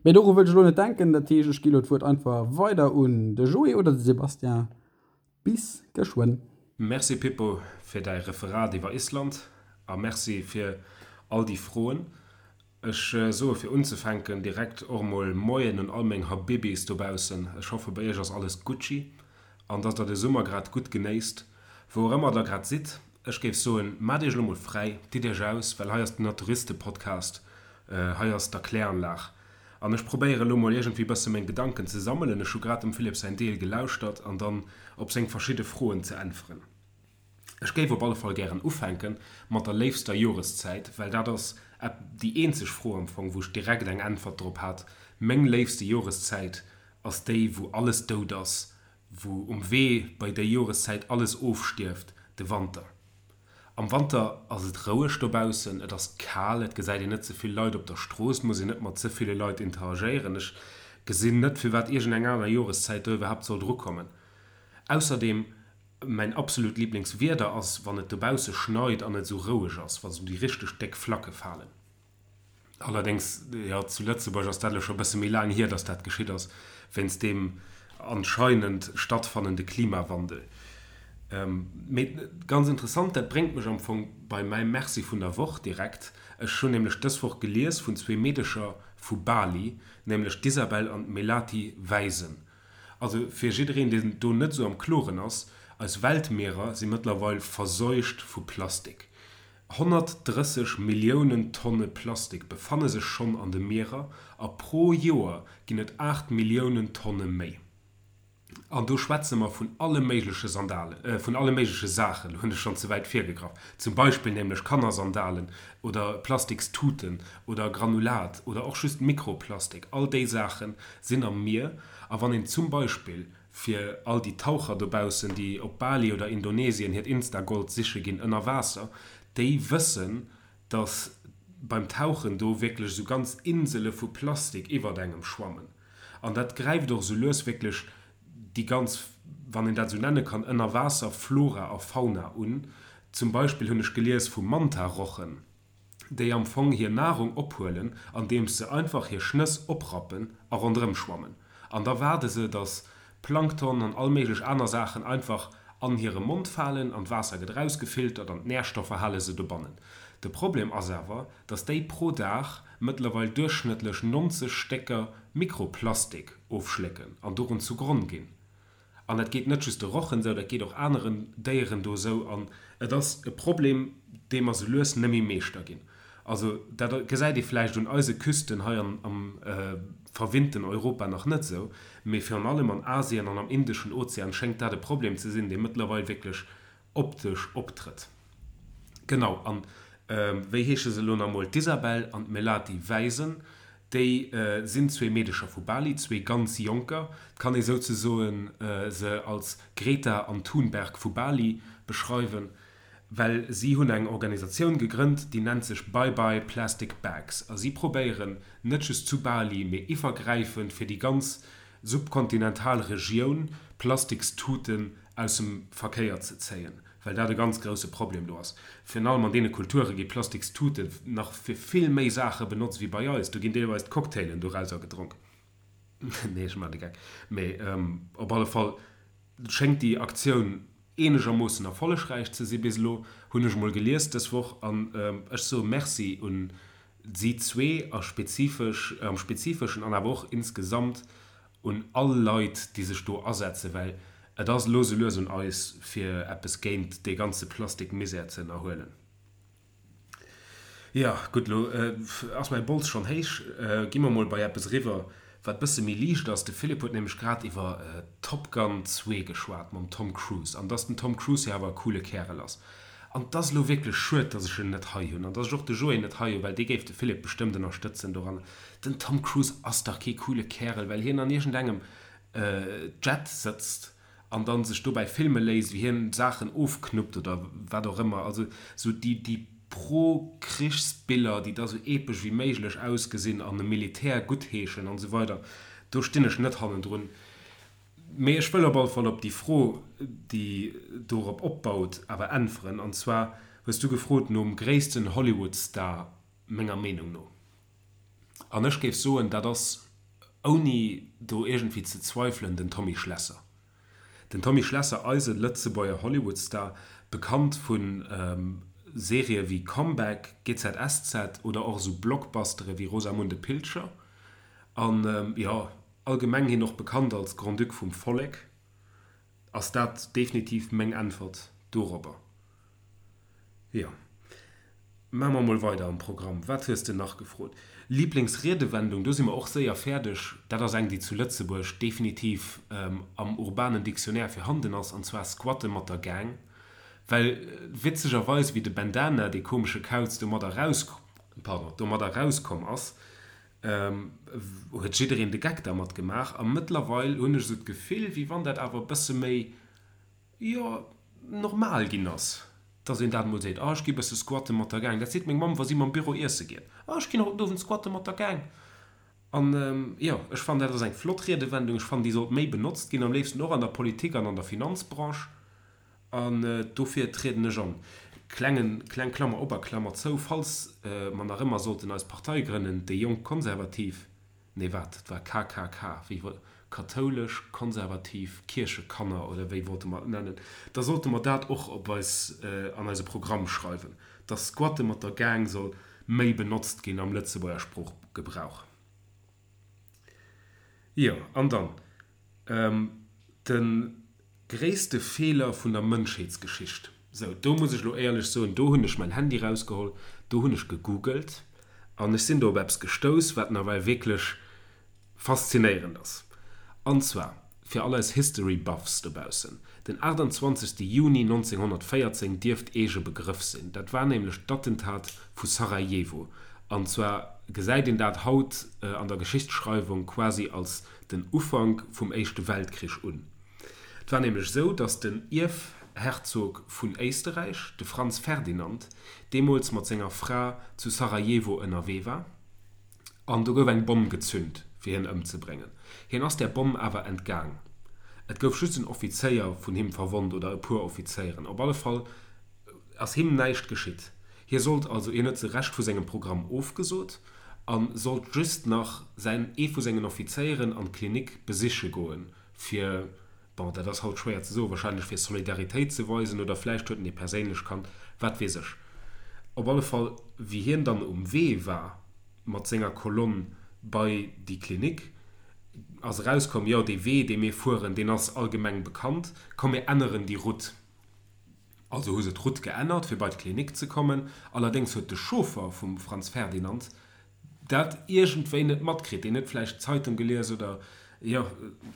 Mee doru wëll ech elo net denken, dat heescht ech gi elo d'Wuert einfach weider un de Joé oder de Sébastien. Bis geschwënn. Merci Pippo fir däi Referat iwwer Island a Merci fir all déi Froen. Ech soe fir unzefänken direkt och emol Moien un all meng Habibis dobaussen. Ech hoffe bei iech ass alles Gucci an dass der de Summer grad gutt genéisst, wou och ëmmer der grad sidd. Ech géif soen, maacht iech elo mol fräi, ditt iech aus, well hei ass den Naturiste-Podcast, hei ass d'Erkläranlag. An ech probéiere lo mol iergendwéi bësse meng Gedanken ze sammelen, ech hu grad dem Philippe säin Deel gelauschtert, an dann op seng verschidde Froen ze äntweren. Ech géif op alle Fall gären ufänke mat der léifster Joreszäit, well dat ass déi eenzeg Fro am Fong, wou ech direkt eng Äntwert drop hat. Meng léifste Joreszäit ass déi, wou alles dout ass, wou um Wee bei déi Joreszäit alles ofstierft, de Wanter. Am Wanter ass et roueg dobaussen, et ass kal, et gesäit een net ze vill Leit op der Strooss, et muss een net mat ze ville Leit interagéieren. Ech gesinn net, firwat iergendeng aner Joreszäit do iwwerhaapt soll drukommen. Ausserdeem, mäin absolut Liblingswieder ass, wann et dobausse schneit an et esou roueg ass, wa sou déi richteg déck Flacke falen. Allerdéngs, jo, zu Lëtzebuerg ass dat elo scho e bësse méi laang hier, datt dat geschitt ass, wéinst deem anscheinend stattfannende Klimawandel. Mee ganz interessant, dat bréngt mech am Fong bei mäi Merci vun der Woch direkt. Ech hunn nämlech dës Woch gelies vun zwee Meedecher vu Bali, nämlech d'Isabel an d'Melati Wijsen. Also fir jiddereen, deen do net esou am Kloren ass, eis Weltmierer si mëttlerweil verseucht vu Plastik. 130 Milliounen Tonne Plastik befanne sech schonn an de Mierer a pro Joer ginn et 8 Milliounen Tonne méi. An do schwätze mer vun alle méigleche Sandalen, vun alle méigleche Saachen, elo hunn ech schonn ze wäit virgegraff, zum Beispill nämlech Kannersandalen oder Plastikstuten oder Granulat oder och just Mikroplastik, all déi Saache sinn am Mier. A wann een zum Beispill Fir all déi Taucher dobaussen, déi op Bali oder Indonesien hiert Insta-Gold siche ginn ënner Waasser, déi wëssen, dass beim Tauchen do wierklech esou ganz Insele vu Plastik iwwert engem schwammen. An dat gräift och esou lues wierklech déi ganz, wann een dat esou nenne kann, Ënnerwaasser-Flora a Fauna un. Zum Beispill hunn ech gelies vu Manta-Rochen. déi am Fong hir Nahrung ophuelen, andeems se einfach hir Schnëss oprappen a ronderëm schwammen. An da waarde se, dass Plankton an all méiglech aner Saachen einfach an hire Mond falen an d'Waasser gëtt erausgefiltert an d'Närstoffer hale se dobannen. De Problem ass awer, dass déi pro Dag mëttlerweil duerchschnëttlech 90 Stécker Mikroplastik ofschlécken an dorun zugronn ginn. An dat geet net just de Rochen esou, dat geet och aneren Déieren do esou. An et ass e Problem, dee mer sou lues net méi Meeschter ginn. Also dat gesäit ee vläicht un eise Küsten hei am verwinnten Europa nach net esou, mee virun allem an Asien an am Indeschen Ozean schéngt dat e Problem ze sinn, dee mëttlerweil wierklech optesch optrëtt. Genau, an wéi heesche se elo nach emol? D'Isabel an d'Melati Wijsen, déi sinn zwee Meedecher vu Bali, zwee ganz Jonker. Et kann ee souzesoen se als Greta an Thunberg vu Bali beschreiwen, well si hunn eng Organisatioun gegrënnt, déi nennt sech Bye Bye Plastic Bags a si probéieren net just zu Bali, mee iwwergräifend fir déi ganz subkontinental Regioun Plastikstuten aus dem Verkéier ze zéien, well dat e ganz grousse Problem do ass. Virun allem an deene Kulture gi Plastikstute nach fir vill méi Saache benotzt wéi bei eis. Do ginn deelweis d'Cocktailen dorauser gedronk. Nee, ech maachen de Geck. Mee op alle Fall schéngt déi Aktioun eenegermoossen erfollegräich ze si bis elo, hunn ech emol gelies dës Woch. An ech soe Merci un si zwee a spezifesch, am Spezifeschen an awer och insgesamt un all Leit, déi sech do asetzen, well et ass elo sou lues un eis, fir eppes géint dee ganze Plastikmisär ze ënnerhuelen. Jo, gutt, elo ass mäi Bols schonn héich. Gi mer mol bei eppes eriwwer, wat bësse méi liicht ass. De Philippe huet nämlech grad iwwer Top Gun 2 geschwat mam Tom Cruise an dass den Tom Cruise jo awer e coole Kärel ass. An 't ass elo wierklech schued, dass ech en net hei hunn an dass ech och de Joé net hei hunn, well dee géif de Philippe bestëmmt ënnerstëtzen doran. Den Tom Cruise ass dach kee coole Kärel, well hien an iergendengem Jet sëtzt an dann sech dobäi filme léisst, wéi hien Saachen ofknuppt oder wat och ëmmer. Also sou déi déi Pro-Krichsbiller, déi da sou epesch wéi méiglech ausgesinn an e Militär guttheeschen an esou weider, do stinn ech net hannendrun. Mee ech wëll op alle Fall op déi Fro, déi dorop opbaut, awer äntweren. An zwar hues du gefrot nom gréissten Hollywood-Star menger Meenung no. An ech géif soen, dat ass, ouni do iergendwéi ze zweifelen, den Tommy Schlesser. Den Tommy Schlesser, eise Lëtzebuerger Hollywood-Star, bekannt vu Serië wéi Comeback, GZSZ oder och esou Blockbustere wéi Rosamunde Pilcher. An jo, Allgemeng hien och bekannt als Grand-Duc vum Vollek, ass dat definitiv meng Äntwert dorobber. Jo. Maache mer mol weider am Programm. Wat hues de nach gefrot? Lieblingsriedewendung, do si mer och séier fäerdeg. Dat ass eng, déi zu Lëtzebuerg definitiv am urbanen Dictionnaire virhanden ass, an zwar squatte mat der Gang. Well witzegerweis, wéi de Bandana, dee komesche Kauz, domadder raus, pardon, domadder rauskomm ass, huet jiddereen de Geck dermat gemaach. A mëttlerweil hunn ech esou d'Gefill, wéi wann dat awer e bësse méi, jo, normal ginn ass, dass een dat emol seet, ah ech gi bësse squatte mat der Gang. Dat seet meng Mamm, wa si mam Büro iesse geet, ah ech ginn haut den Owend squatte mat der Gang. An jo, ech fannen dat ass eng flott Riedewendung, ech fannen déi sollt méi benotzt ginn, am léifsten och an der Politik an an der Finanzbranche. An dofir trieden ech an. Klengen, kleng Klammer op a Klammer zou, falls mer nach ëmmer sollten eis Partei grënnen, déi Jonk Konservativ, Nee, wat? Et war KKK, wéi wol, Kathoulesch Konservativ Kierchekanner oder wéi wollte mer et nennen? Da sollte mer dat och op eis, an eise Programm schreiwen, dass Squatte mat der Gang soll méi benotzt ginn am Lëtzebuerger Sproochgebrauch. Jo, an dann de gréisste Feeler vun der Mënschheetsgeschicht. Sou, do muss ech elo éierlech soen, do hunn ech mäin Handy rausgeholl, do hunn ech gegoogelt an ech sinn do op eppes gestouss, wat nawell wierklech faszinéierend ass. An zwar, fir all eis History Buffs dobaussen, den 28. Juni 1914 dierft Iech e Begrëff sinn. Dat war nämlech d'Attentat vu Sarajevo. An zwar gesäit een dat haut an der Geschichtsschreiwung quasi als den Ufank vum Éischte Weltkrich un. Et war nämlech esou, datt den Ierfherzog vun Éisterräich, de Franz Ferdinand, deemools mat senger Fra zu Sarajevo ënnerwee war an do gouf eng Bomm gezünt, fir hien ëmzebréngen. Hien ass där Bomm awer entgaang. Et gouf just en Offizéier vun him verwonnt oder e puer Offizéieren. Op alle Fall ass him näischt geschitt. Hie sollt also, hien huet de Rescht vu sengem Programm ofgesot a sollt just nach säin, ee vu sengen Offizéieren an d'Klinik besiche goen, fir, bon, dat ass haut schwéier ze soen, wahrscheinlech fir Solidaritéit ze weisen oder vläicht huet en e perséinlech kannt, wat weess ech. Op alle Fall, wéi hien dann um Wee war mat senger Kolonn bei déi Klinik, ass erauskomm, jo, dee Wee, dee mir fueren, deen ass allgemeng bekannt, komm mir änneren déi Route. Also hu se d'Route geännert, fir bei d'Klinik ze kommen. Allerdéngs huet de Chauffer vum Franz Ferdinand dat iergendwéi net matkritt. Deen huet vläicht d'Zeitung gelies oder, jo,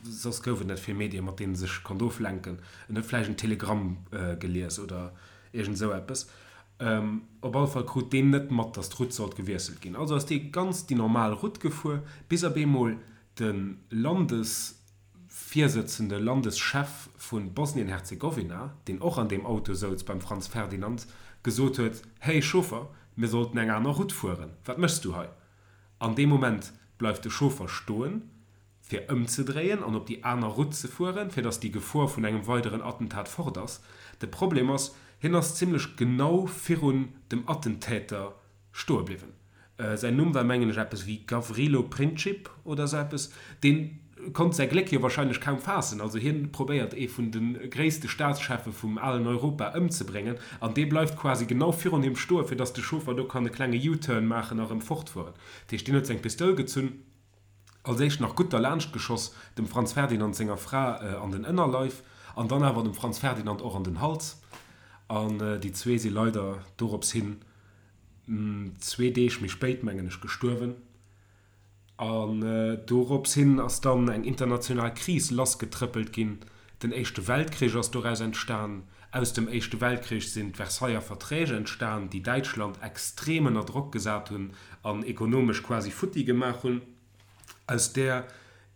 soss gouf et net vill Medien, mat deenen e sech konnt oflenken. En huet vläicht en Telegramm gelies oder iergend esou eppes. Op alle Fall krut deen net mat, datt d'Route sollt gewiesselt ginn. Also ass dee ganz déi normal Route gefuer, bis op eemol de Landes. Virsëtzende Landeschef vu Bosnien-Herzegowina, deen och an deem Auto souz beim Franz Ferdinand, gesot huet, Hey Chauffer, mir sollten eng aner Route fueren, wat méchs du hei? An deem Moment bleift de Chauffer stoen, fir ëmzedréien an op déi aner Route ze fueren, fir datt déi Gefor vun engem weideren Attentat fort ass. De Problem ass, hien ass zimlech genau virun dem Attentäter stoe bliwwen. Säin Numm war mengen ech eppes wéi Gavrilo Princip oder sou eppes. Dee konnt säi Gléck jo wahrscheinlech kaum faassen. Also hien probéiert ee vun de gréisste Staatscheffe vum alen Europa ëmzebréngen an dee bleift quasi genau virun him stoen, fir datt de Chauffer do kann e klenge U-Turn maachen a rëm fortfueren. Dat heescht, deen huet seng Pistoul gezunn, als éischt nach gutt derlaanscht geschoss, dem Franz Ferdinand senger Fra an den Ënnerleif an dann awer dem Franz Ferdinand och an den Hals. An déi zwee si leider dorops hin zwee Deeg méi spéit, mengen ech, gestuerwen. An dorops hin ass dann eng international Kris lassgetrëppelt ginn. Den Éischte Weltkrich ass doraus entstan. Aus dem Éischte Weltkrich sinn d'Versailler Verträg entstan, déi Däitschland extrem ënner Drock gesat hunn an ekonomesch quasi futti gemaach hunn. Aus där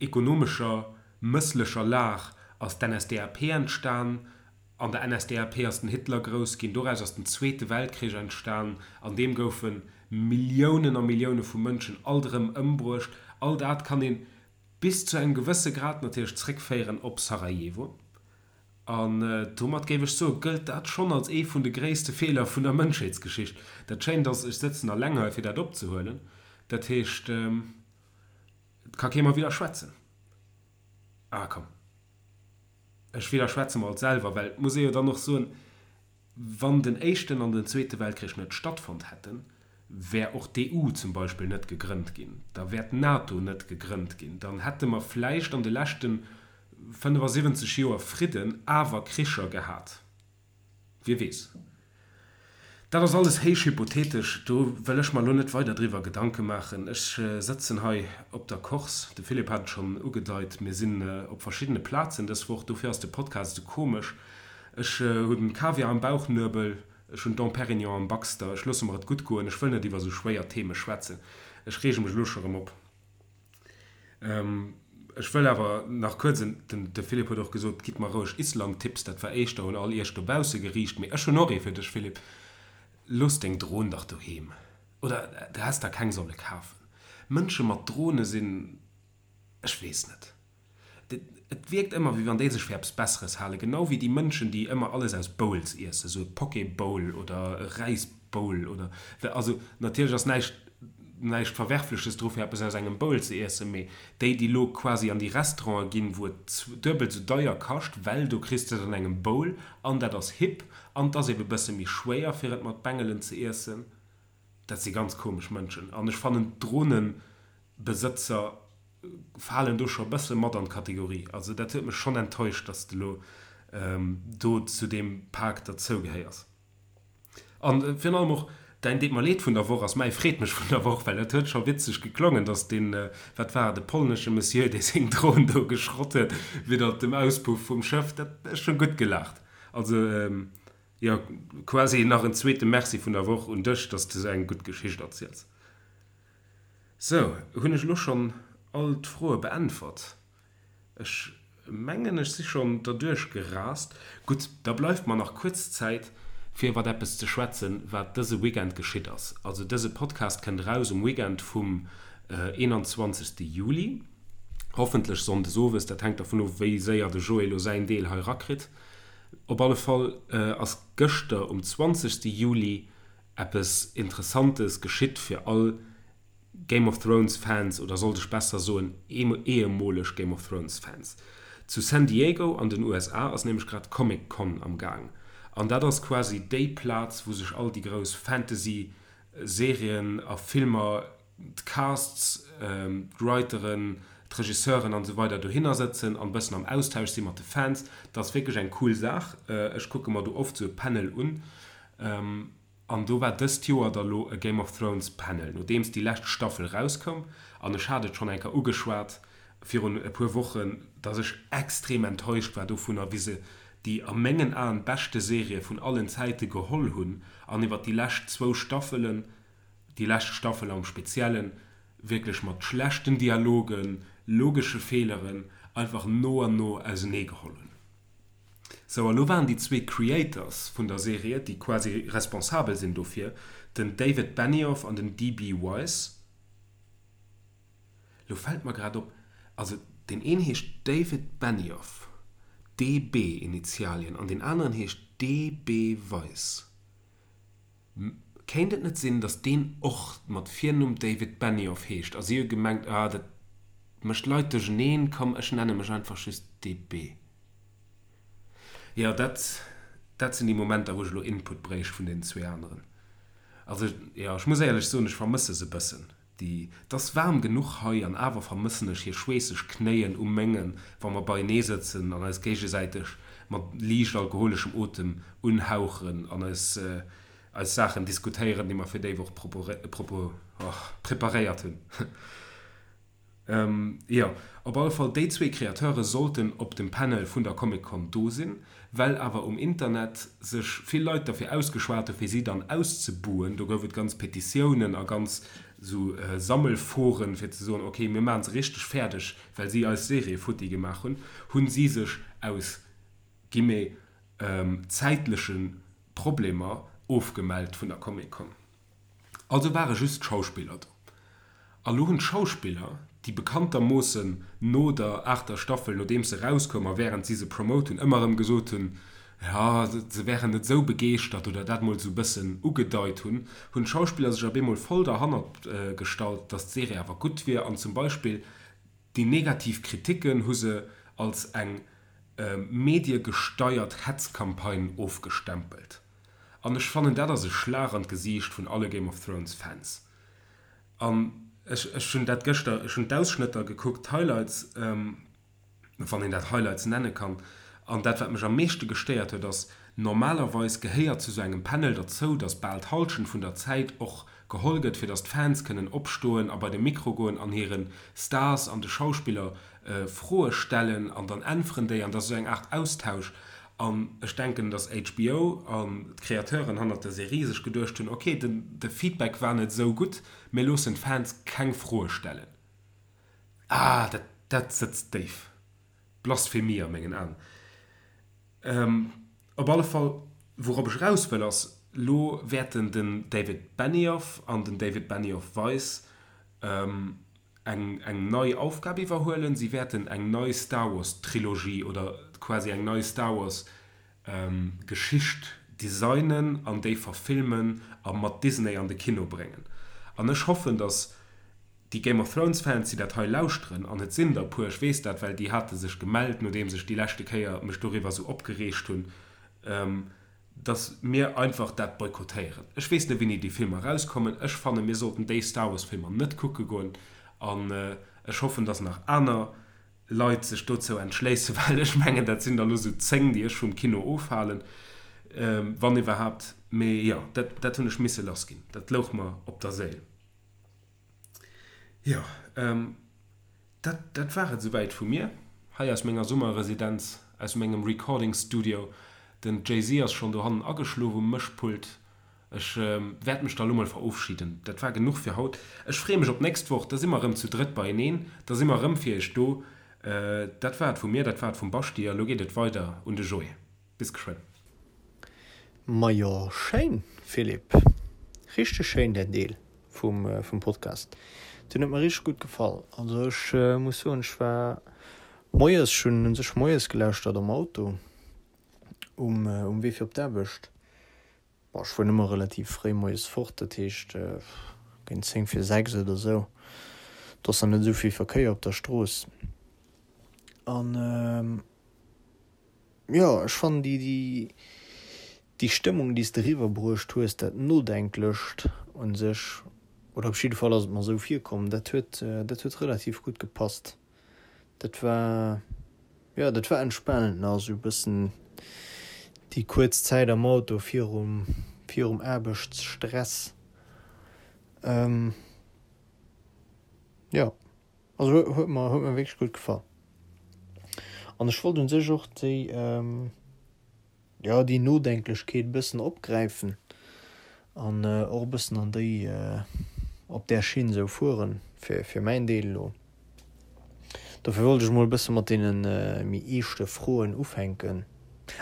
ekonomescher mësslecher Lag ass d'NSDAP entstan. An der NSDAP ass den Hitler grouss ginn. Doraus ass den Zweete Weltkrich entstan. An deem goufe Milliounen a Millioune vu Mënschen alt erëm ëmbruecht. All dat kann ee bis zu engem gewësse Grad natierlech zréckféieren op Sarajevo. An domat géif ech soe gëllt dat schonn als ee vun de gréisste Feeler vun der Mënschheetsgeschicht. Dat Schéint ass, ech sëtzen alleng hei fir dat opzehuelen. Dat heescht, et ka kee mer widderschwätzen. Ah komm. Ech widderschwätze mer alt selwer, well et muss ee jo dann och soen, wann den éischten an den zweete Weltkrich net stattfonnt hätten, wär och d'EU zum Beispill net gegrënnt ginn, da wär d'NATO net gegrënnt ginn, dann hätte mer vläicht an de leschte 75 Joer Fridden awer Kricher gehat. Wie weess. Dat ass alles héich hypothetesch, do wëll ech mer elo net weider driwwer Gedanke maachen. Ech sëtzen hei op der Corse, de Philippe hat et schonn ugedeit, mir sinn op verschiddene Plazen dës Woch, dofir ass de Podcast esou komesch. Ech hunn Kaviar am Bauchnuebel, ech hunn Dom Pérignon am Baxter, ech loosse mer et gutt goen, ech wëll net iwwer esou schwéier Theme schwätzen, ech reege mech elo scho rëm op. Ech wëll awer nach kuerz en, den de Philippe huet och gesot, gitt mer roueg Island-Tipps, dat war éischter un all iech dobausse geriicht, mee ech hunn och ee fir dech Philippe, looss deng Dron dach doheem, oder du häss der keng solle kafen. Mënsche mat Drone sinn, ech weess net. Et wierkt ëmmer, wéi wann déi sech fir eppes Besseres halen. Genau wéi déi Mënschen, déi ëmmer alles aus Bowls iessen, esou e Poké Bowl oder e Räis Bowl oder also natierlech ass näischt näischt Verwerfleches dru fir eppes aus engem Bowl ze iessen, mee déi, déi elo quasi an déi Restaurante ginn, wou et duebelt esou deier kascht, well do kriss de et an engem Bowl an dat ass hip an 't ass ebe bësse méi schwéier fir et mat Bengelen ze iessen. Dat si ganz komesch Mënschen an ech fannen d'Dronenbesëtzer falen do scho e bësse mat an d'Kategorie. Also dat huet mech schonn enttäuscht, dass de lo do zu deem Pak derzou gehéiers. An virun allem och däin Deet mer leed vun der Woch ass mäi Freet mech vun der Woch, well dat huet scho witzeg geklongen, dass deen, wat war et, e polnesche Monsieur, dee seng Dron do geschrott huet widder dem Auspuff vum Schëff, dat, ech hunn gutt gelaacht. Also jo, quasi nach en zweete Merci vun der Woch un dech, dass de sou eng gutt Geschicht erziels. Sou, hunn ech elo schonn all d'Froe beäntwert? Ech mengen, ech si schonn derduerch gerast. Gutt, da bleift mer nach kuerz Zäit, fir iwwert eppes ze schwätzen, wat dëse Weekend geschitt ass. Also dëse Podcast kënnt eraus um Weekend vum 21. Juli, hoffentlech sonndes owes, dat hänkt dervun of, wéi séier de Joé elo säin Deel hei rakritt. Op alle Fall ass gëschter um 20. Juli Eppes Interessantes geschitt fir all Game of Thrones Fans, oder sollt ech besser soen ehemoleg Game of Thrones Fans. Zu San Diego an den USA ass nämlech grad d'Comic Con am Gaang an dat ass quasi déi Plaz wou sech all déi grouss Fantasy Serien a Filmer, d'Casts, d'Writeren, d'Regisseuren an esou weider dohinner sëtzen an bëssen am Austausch si mat de Fans. Dat ass wierklech eng cool Saach. Ech kucke mer do oft sou e Panel un. An do war dëst Joer da lo e Game of Thrones Panel, nodeems déi lescht Staffel rauskoum. An ech hat et schonn eng Kéier ugeschwat virun e puer Wochen, dass ech extrem enttäuscht war dovunner, wéi se déi a mengen Aen beschte Serie vun allen Zäite geholl hunn an iwwer déi lescht zwou Staffelen, déi lescht Staffel am Speziellen, wierklech mat schlechten Dialogen, logesche Feeleren einfach no an no auseneegeholl hunn. Sou, a lo waren déi zwee Creators vun der Serie, déi quasi responsabel sinn dofir, den David Benioff an den DB Weiss. Lo fält mer grad op, also deen een heescht David Benioff, DB Initialien, an deen aneren heescht DB Weiss. Kéint et net sinn, datt deen och mat Virnumm David Benioff heescht a si hu gemengt, ah dat mécht d'Leit duercheneen, komm ech nenne mech einfach just DB. Jo, dat dat sinn déi Momenter wou ech elo Input bréicht vun deenen zwee aneren. Also jo, ech muss éierlech soen, ech vermësse se e bëssen. Déi, 't ass waarm genuch hei an awer vermëssen ech hir schweesseg Knéien u mengen, wa mer beienee sëtzen an eis géigesäiteg mat liicht alkoholeschem Otem unhauchen an eis eis Saachen diskutéieren, déi mer fir déi Woch preparéiert hunn. Jo, op alle Fall, déi zwee Createure sollten op dem Panel vun der Comic Con do sinn. Well awer um Internet sech vill Leit derfir ausgeschwat hu fir si dann auszebuhen, do gouf et ganz Petitiounen a ganz sou Sammelforen fir ze soen, ok mir maachen se richteg fäerdeg, well si eis Serie futti gemaach hunn, hunn si sech aus guillemets zäitleche Problemer ofgemellt vun der Comic Con. Also ware just d'Schauspiller do. A lo hunn d'Schauspiller, déi bekanntermoossen no der aachter Staffel, nodeems se erauskoum a wärend si se promote hunn, ëmmer erëm gesot hunn, jo, se wären net esou begeeschtert oder dat mol esou e bëssen ugedeit hunn, hunn d'Schauspiller sech op eemol voll derhannert gestallt, datt d'Serie awer gutt wier an zum Beispill déi negativ Kriticken hu se als eng mediegesteiert Hetzcampagne ofgestempelt. An ech fannen dat ass e Schlag an d'Gesiicht vun alle Game of Thrones Fans. An ech ech hunn dat gëschter, ech hunn d'Ausschnëtter gekuckt, d'Highlights, wann een dat Highlights nenne kann. An dat wat mech am meeschte gestéiert huet ass, Normalerweis gehéiert zu sou engem Panel derzou, dass bal d'Hallschent vun der Zäit och geholl gëtt, fir dass d'Fans kënnen opstoen a bei de Mikro goen an hire Stars an de Schauspiller Froe stellen an dann äntweren déi an dat ass esou eng Aart Austausch. An ech denken, dass HBO an d'Createuren hannert der Serie sech geduecht hunn, ok, de Feedback war net esou gutt, mir loossen d'Fans keng Froe stellen. Ah, dat dat sëtzt déif. Blasphemie a mengen Aen. Op alle Fall, wourop ech eraus wëll ass, lo wäerten den David Benioff an den David Benioff-Weiss eng eng nei Aufgab iwwerhuelen. Si wäerten eng nei Star Wars Trilogie oder quasi eng nei Star Wars Geschicht designen an déi verfilmen a mat Disney an de Kino bréngen. An ech hoffen, datt déi Game of Thrones Fans, déi dat hei lauschteren, an et sinn der e puer, ech weess dat, well déi hate sech gemellt, nodeems ech déi leschte Kéier mech doriwwer esou opgereegt hunn, dass mir einfach dat boykottéieren. Ech weess net wéini déi Filmer erauskommen. Ech fannen mir sollten déi Star Wars Filmer net kucke goen an ech hoffen dass nach aner Leit sech dozou entschléissen, well ech mengen dat sinn der elo sou 10 déi ech vum Kino ofhalen, wann iwwerhaapt. Mee jo, dat dat hunn ech misse lass ginn, dat louch mer op der Séil. Jo. Dat, dat war et esouwäit vu mir, hei aus menger Summerresidenz, aus mengem Recording Studio. Den Jay-Z ass schonn dohannen ageschlof um Mëschpult. Ech wäert mech da lo mol verofschiden. Dat war genuch fir haut. Ech freeë mech op d'nächst Woch, da si mer erëm zu drëtt beieneen, da si mer erëm fir iech do. Dat war et vu mir, dat war et vum Baschi a lo geet et weider un de Joé. Bis geschwënn. Majo schéin Philippe, richteg schéin däin Deel vum Podcast, deen huet mer richteg gutt gefall. Also ech muss soen ech war moies, ech hunn un sech moies gelauschtert am Auto um um Wee fir op d'Aarbecht. Bon ech fueren ëmmer relativ fréi moies fort, dat heescht géint 10 vir 6 oder sou, do ass dann net esou vill Verkéier op der Strooss an. Jo, ech fannen déi, déi, déi Stëmmung, déi s de eriwwer bruecht hues, dat Nodenklecht un sech, oder op jidde Fall ass et mer esou virkomm, dat huet, dat huet relativ gutt gepasst. Dat war, jo, dat war entspanend nach esou e bëssen déi kuerz Zäit am Auto virum, virum Aarbechtsstress. Jo. Also huet mer huet mer wierklech gutt gefall. An ech wollt un sech och déi jo déi Nodenklechkeet e bëssen opgräifen an och e bëssen an déi op där Schinn esou fueren, fir fir mäin Deel elo. Dofir wollt ech mol e bësse mat deene méi eeschte Froen ufänken.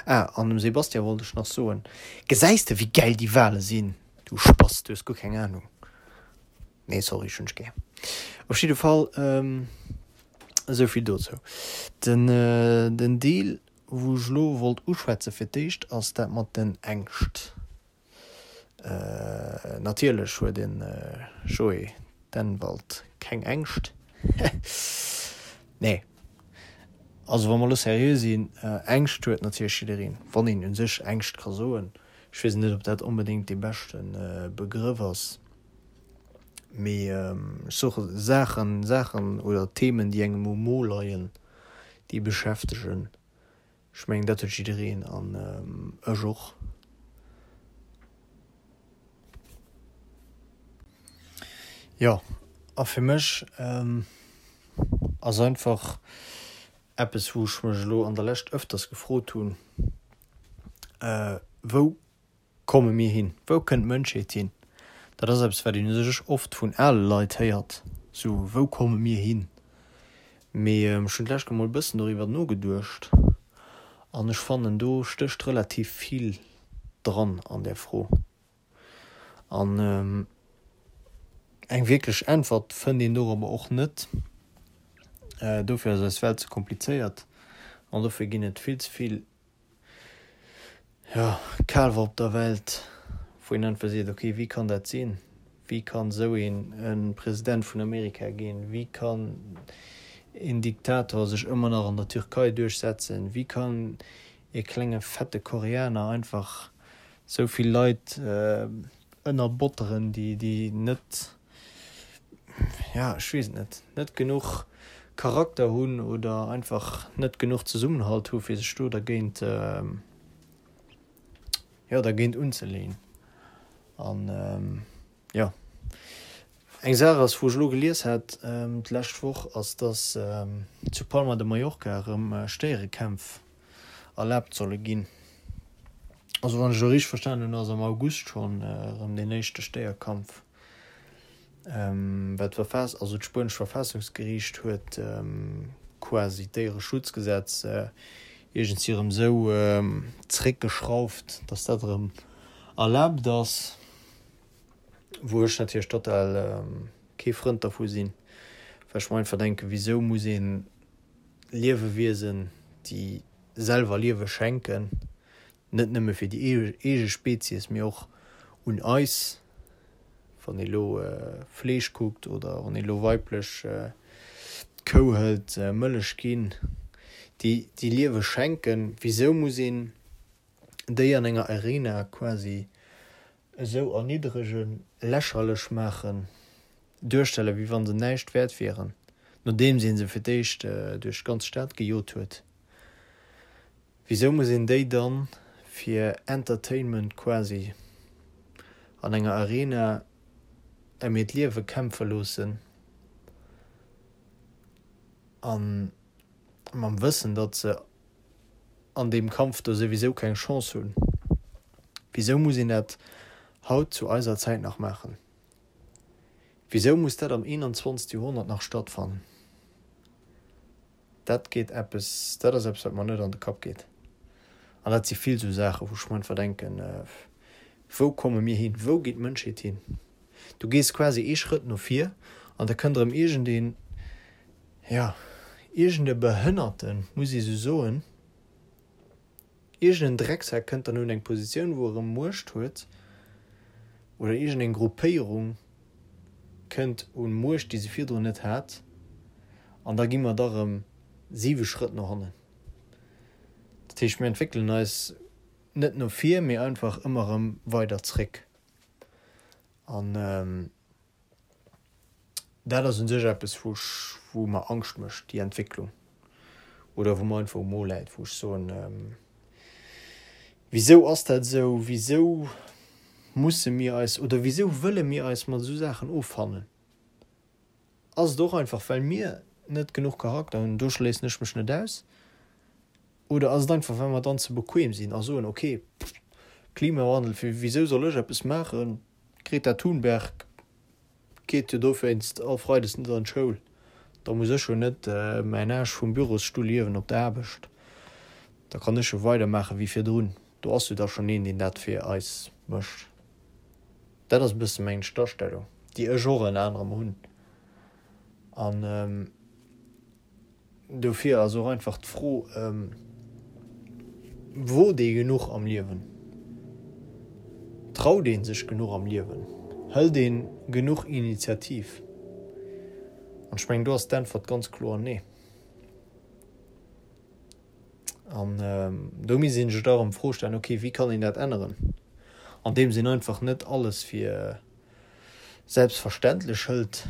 Ah, an dem Sebastian wollt ech nach soen, Gesäis de wéi gäil déi Wale sinn, du Spass, du hues guer keng Ahnung. Nee sorry, ech hunn dech gär. Op jidde Fall esou vill dozou. Den den Deel wou ech elo wollt uschwätze fir d'éischt ass dat mat den Ängscht. Natierlech huet den Joé Dennwald keng Ängscht. Nee also wa mer elo seriö sinn, Ängscht huet natierlech jiddereen, wann een u sech Ängscht ka soen. Ech weess net ob dat onbedéngt dee beschte Begrëff ass. Mee ech soe Saachen, Saachen oder Themen, déi engem um Mo leien, déi beschäftegen. Ech mengen, dat huet jiddereen an ech och. Jo, a fir mech ass einfach eppes, wou ech mech elo an der Lescht ëfters gefrot hunn, Wou komme mir hin? Wou kënnt d'Mënschheet hin? Dat ass eppes, wat een u sech oft vun ale Leit héiert, sou, Wou komme mir hin? Mee ech hunn d'lescht Kéier mol e bëssen doriwwer nogeduecht an ech fannen, do stécht relativ vill dran an där Fro. An eng wierklech Äntwert fënnt een dorobber och net. Dofir ass eis Welt ze komplizéiert an dofir ginn et vill ze vill Jo, kal war op der Welt, wou een einfach seet, ok, wéi kann dat sinn? Wéi kann esou een e President vun Amerika ginn? Wéi kann een Diktator sech ëmmer nach an der Türkei duerchsetzen? Wéi kann ee klenge fette Koreaner einfach esou vill Leit ënnerbotteren, déi, déi net, ja, ech weess et net, net genuch Charakter hunn oder einfach net genuch Zesummenhalt hu fir sech do dergéint. jo, dergéint unzeleeën. An jo, eng Saach ass, wou ech elo gelies hat d'lescht Woch, ass, dass zu Palma de Mallorca erëm Stéierekämpf erlaabt solle ginn. Also wann ech elo richteg verstanen hunn, ass am August schonn erëm deen éischte Stéierkampf. Well d'Verfass, also d'spuenescht Verfassungsgeriicht huet quasi d'Déiereschutzgesetz iergendwéi erëm esou zeréckgeschrauft, datt dat erëm erlaabt ass, wou ech natierlech total kee Frënd dervu sinn, well ech mer einfach denken, wisou muss ee Liewewiesen, déi selwer Liewe schenken, net nëmme fir déi eege Spezies, mee och un eis, wann ee lo Fleesch kuckt oder wann ee lo weiblech d'Kou hëlt, Mëllech ginn, déi déi Liewe schenken, wisou muss een déi an enger Arena quasi esou erniddregen, lächerlech maachen, duerstellen, wéi wa se näischt wäert wieren, nodeems ee se fir d'éischt duerch d'ganz Stad gejot huet? Wisou muss een déi dann fir Entertainment quasi an enger Arena em hiert Liewe kämpfe loossen an mam Wëssen datt se an deem Kampf do souwisou keng Chance hunn? Wisou muss een dat haut zu eiser Zäit nach maachen? Wisou muss dat am 21. Joerhonnert nach stattfannen? Dat geet eppes, dat ass eppes, wat mer net an de Kapp geet. An dat si vill esou Saachen, wou ech mer einfach denken, Wou komme mir hin? Wou geet d'Mënschheet hin? Du gees quasi ee Schrëtt no vir an da kënnt erëm iergendeen, jo, iergende Behënnerten, muss ee sou soen, Iergend en Drecksack kënnt dann un eng Positioun wou e rëm Muecht huet, oder iergend eng Gruppéierung kënnt un Muecht déi se virdrun net hat, an da gi mer da rëm siwe Schrëtt no hannen. Dat heescht mir entwéckelen eis net no vir, mee einfach ëmmer rëm weider zréck. An Dat ass u sech eppes, wou ech, wou mer Angscht mécht, déi Entwécklung, oder wou mer einfach um Mo läit, wou ech soen, Wisou ass dat esou? Wisou musse mir eis oder wisou wëlle mir eis mat esou Saachen offannen? Ass et och einfach, well mir net genuch Charakter hunn, do schléissen ech mech net aus, oder ass et einfach, well mer dann ze bequem sinn a soen, okay, Klimawandel, wisou soll ech eppes maachen? D'Greta Thunberg geet jo dowéinst all Freides net an d'Schoul. Da muss ech jo net mäin Aarsch vum Bürosstull hiewen op der Aarbecht. Da kann ech jo weidermaache wéi virdrun. Do ass jo da schonn een, deen dat fir eis mécht. Dat ass e bësse meng d'Astellung, déi ech och ënner anerem hunn. An. Dofir ass och einfach d'Fro, Wot ee genuch am Liewen? Traut ee sech genuch am Liewen? Hëlt ee genuch Initiativ? An ech mengen, do ass d'Äntwert ganz kloer Nee. An do misst ee sech da erëm d'Fro stellen, Okay, wéi kann een dat änneren? Andeems een einfach net alles fir selbstverständlech hëlt,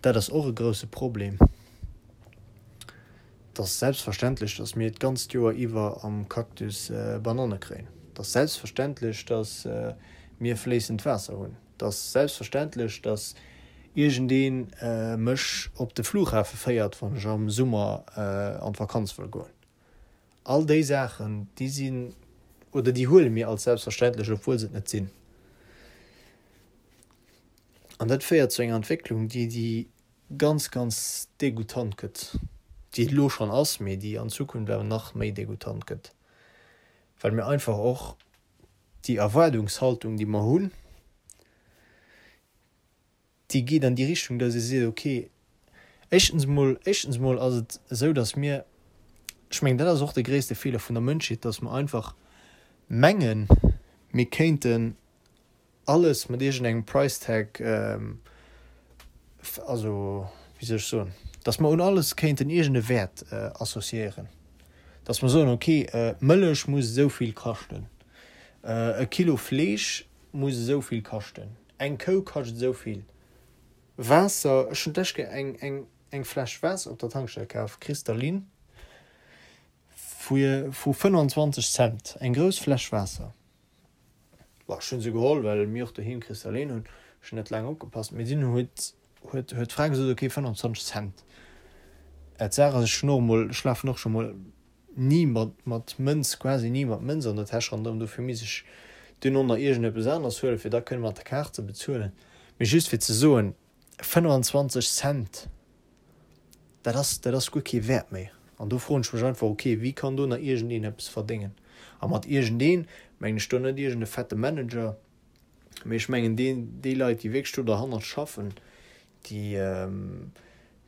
dat ass och e grousse Problem. Et ass selbstverständlech, datt mir d'ganzt Joer iwwer am Cactus Bananne kréien. Et ass selbstverständlech, datt mir fléissend Waasser hunn. Et ass selbstverständlech, datt iergendee mech op de Flughafe féiert, wann ech am Summer an d'Vakanz wëll goen. All déi Saachen, déi sinn oder déi huele mir als selbstverständlech, obwuel se et net sinn. An dat féiert zu enger Entwécklung, déi déi ganz, ganz degoutant gëtt, déi et elo schonn ass, mee déi an Zukunft awer nach méi degoutant gëtt, well mir einfach och déi Erwaardungshaltung, déi mer hunn, déi geet an déi Richtung, dass ee seet, okay, éischtens emol, éischtens emol ass et esou, dass mir, ech mengen, dat ass och de gréisste Feeler vun der Mënschheet, dass mer einfach mengen, mir kéinten alles mat iergendengem Price Tag, also wéi soll ech soen, dass mer un alles kéinten iergend e Wäert associéieren, dass mer soen, okay, Mëllech muss esou vill kaschten, e Kilo Fleesch muss esou vill kaschten, eng Kou kascht esou vill, Waasser, ech hunn d'lescht Kéier eng, eng, eng Fläsch Waasser op der Tankstell kaf, Kristallin, vu, vu 25 Cent, eng grouss Fläsch Waasser. Bon, ech hunn se geholl, well mir och doheem Kristallin hunn. Ech hunn net laang opgepasst, mee dunn huet huet huet d'Fra gesot, ok, 25 Cent. D'Saach ass, ech hunn och emol, ech lafen och scho mol ni mat mat Mënz, quasi ni mat Mënz an der Täsch ronderëm, dofir misst ech dunn och nach iergendeppes aneres huelen, fir da kënne mat der Kaart ze bezuelen. Mee just fir ze soen, 25 Cent, dat ass, dat ass guer kee Wäert méi. An do froen ech mech einfach, ok, wéi kann do nach iergendeen eppes verdéngen? A mat iergendeen mengen ech do net iergende fette Manager, mee ech mengen deen, déi Leit, déi wierklech do derhannert schaffen, déi,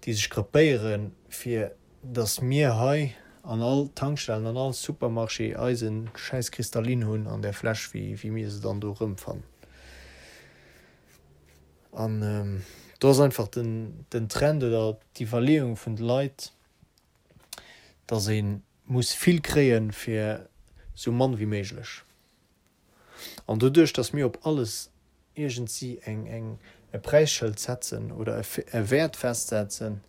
déi sech gruppéieren, fir datt mir hei an all Tankstellen, an all Supermarché eise schäiss Kristallin hunn an där Fläsch, wéi, wéi mir se dann do erëmfannen. An do ass einfach den, den Trend oder d'Iwwerleeung vun de Leit, datt ee muss vill kréie fir sou mann wéi méiglech. An doduerch, datt mir op alles iergendsi eng, eng, e Präisschëld setzen oder e Wäert festsetzen,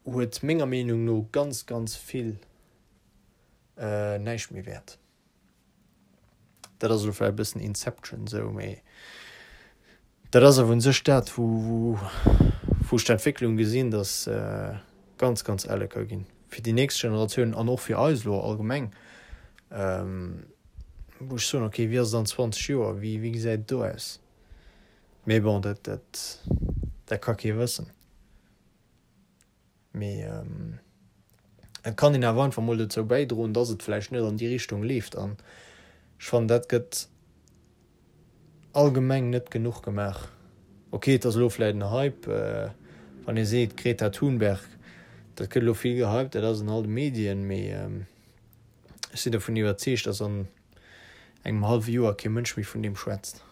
huet menger Meenung no ganz, ganz vill näischt méi Wäert. Dat ass elo vläicht e bëssen Inception esou, mee dat ass awer un sech dat, wou wou ech d'Entwécklung gesinn, datt ganz, ganz elle ka ginn fir déi nächst Generatiounen an och fir eis elo allgemeng, wou ech soen, okay, wéi ass et an 20 Joer, wéi wéi gesäit et do aus? Mee bon, dat dat dat ka kee wëssen. Mee et kann een awer einfach mol dozou bäidroen, dass et vläicht net an déi Richtung leeft. An ech fannen, dat gëtt allgemeng net genuch gemaach. Ok, et ass elo vläicht en Hype, wann ee seet Greta Thunberg, dat gëtt elo vill gehypt, dat ass an all de Medien, mee ech sinn dovun iwwerzeegt, dass an engem hallwe Joer kee Mënsch méi vun deem schwätzt.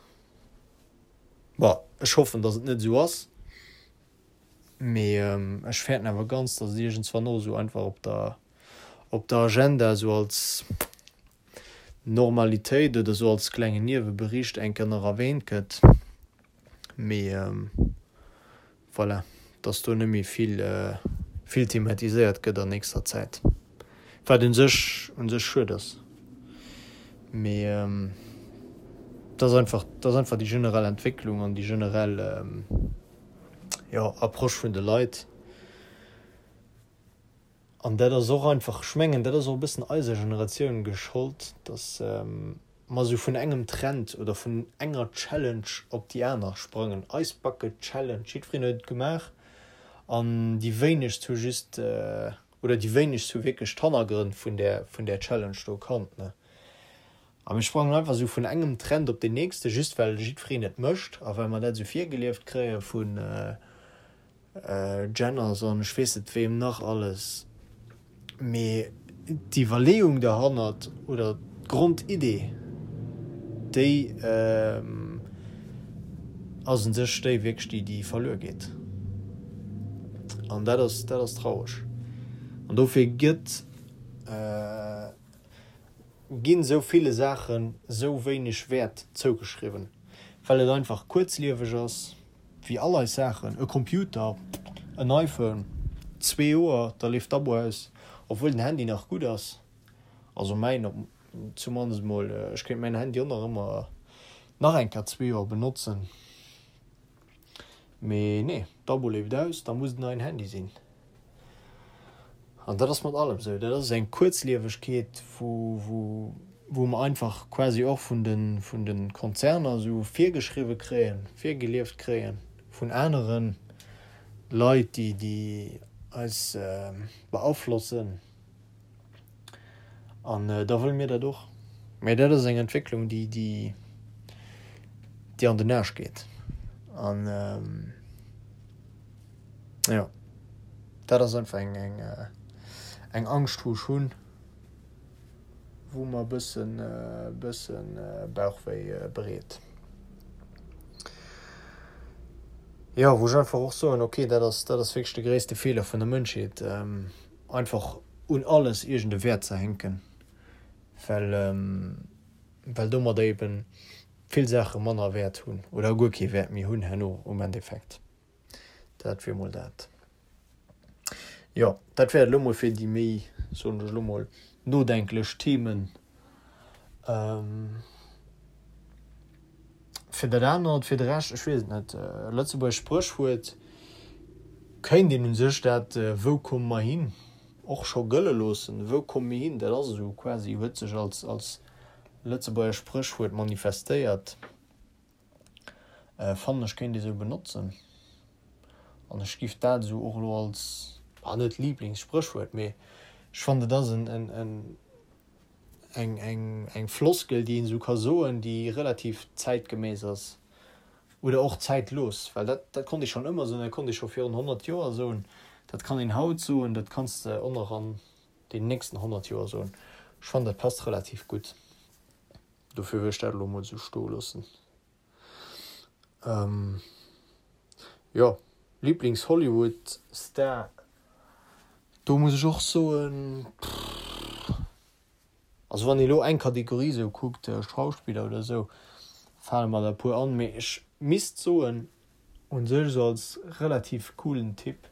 Bon, ech hoffen, dass et net esou ass. Mee ech fäerten awer ganz, datt et iergendswann och esou einfach op der, op der Agenda esou als Normalitéit oder esou als klengen Niewebericht eng Kéier nach erwähnt gëtt. Mee voilà, datt do net méi vill, vill thematiséiert gëtt an nächster Zäit. Wat un sech, un sech schued ass. Mee et ass einfach, et ass einfach déi generell Entwécklung an déi generell, jo, Approche vun de Leit. An dat ass och einfach, ech mengen, dat ass och e bëssen eiser Generatioun geschollt, datt mer esou vun engem Trend oder vun enger Challenge op déi aner sprangen. Ice Bucket Challenge, jiddwereen huet et gemaach an déi wéinegst hu just, oder déi wéinegst hu wierklech d'Hannergrënn vun där, vun där Challenge do kannt, ne. A mir sprangen einfach esou vun engem Trend op deen nächsten, just well jiddwereen et mécht a well mer dat esou virgelieft kréie vun Jenners an ech weess net weem nach alles. Mee d'Iwwerleeung derhannert oder d'Grondidee, déi ass un sech déi wierklech, déi, déi verluer geet. An dat ass, dat ass traureg. An dofir gëtt. Ginn sou ville Saachen sou wéineg Wäert zougeschriwwen, well et einfach kuerzlieweg ass, wéi all eis Saachen, e Computer, en iPhone, zwee Joer, da leeft d'Abo aus, obwuel den Handy nach gutt ass, also mäin op zumannest mol, ech kéint mäin Handy och nach ëmmer nach eng Kéier zwee Joer benotzen, mee nee, d'Abo leeft aus, da muss et en neien Handy sinn. An dat ass mat allem esou. Dat ass eng Kuerzliewegkeet, wou, wou mer einfach quasi och vun de, vun de Konzerner esou virgeschriwwe kréien, virgelieft kréien, vun anere Leit, déi, déi eis beaflossen. An da wëlle mir dat och. Mä dat ass eng Entwécklung, déi, déi, déi an den Aarsch geet. An. Jo, dat ass einfach eng, eng, eng Angscht, wou ech hunn, wou mer e bëssen, bëssen Bauchwéi bereet. Jo, wou ech einfach och soen, okay, dat ass, dat ass wierklech de gréisste Feeler vun der Mënschheet, einfach un alles iergend e Wäert ze hänken, well, well domadder eeben vill Saache manner Wäert hunn oder guer kee Wäert méi hunn herno um Endeffekt. Dat wier mol dat. Jo, dat wär et elo mol fir déi méi, soen ech elo mol, nodenklech Themen. Fir dat anert, fir de Rescht, ech weess et net. Lëtzebuergescht Spréchwuert kéint een u sech dat Wou komme mer hin? och scho gëlle loossen. Wou komme mir hin? Dat ass esou quasi, huet sech als, als Lëtzebuerger Spréchwuert manifestéiert. Fannen ech kéint ee sou benotzen. An ech giff dat esou och elo als, ah net Lieblingssprëchwuert, mee ech fannen et ass en, en, en, eng, eng, eng Floskel déi een esou ka soen, déi relativ zäitgemäss ass oder och zäitlos, well dat, dat konnt ee schonn ëmmer soen, dat konnt ee scho virun 100 Joer soen, dat kann een haut soen, dat kanns de och nach an deenen nächsten 100 Joer soen. Ech fannen dat passt relativ gutt. Dofir wëll ech dat elo mol esou stoe loossen. Jo, Lieblings-Hollywood-Star, do muss ech och soen, also wann ee elo eng Kategorie esou kuckt, Schauspiller oder esou, fale mer der e puer an, mee ech misst soen, u sech esou als relativ coolen Typ,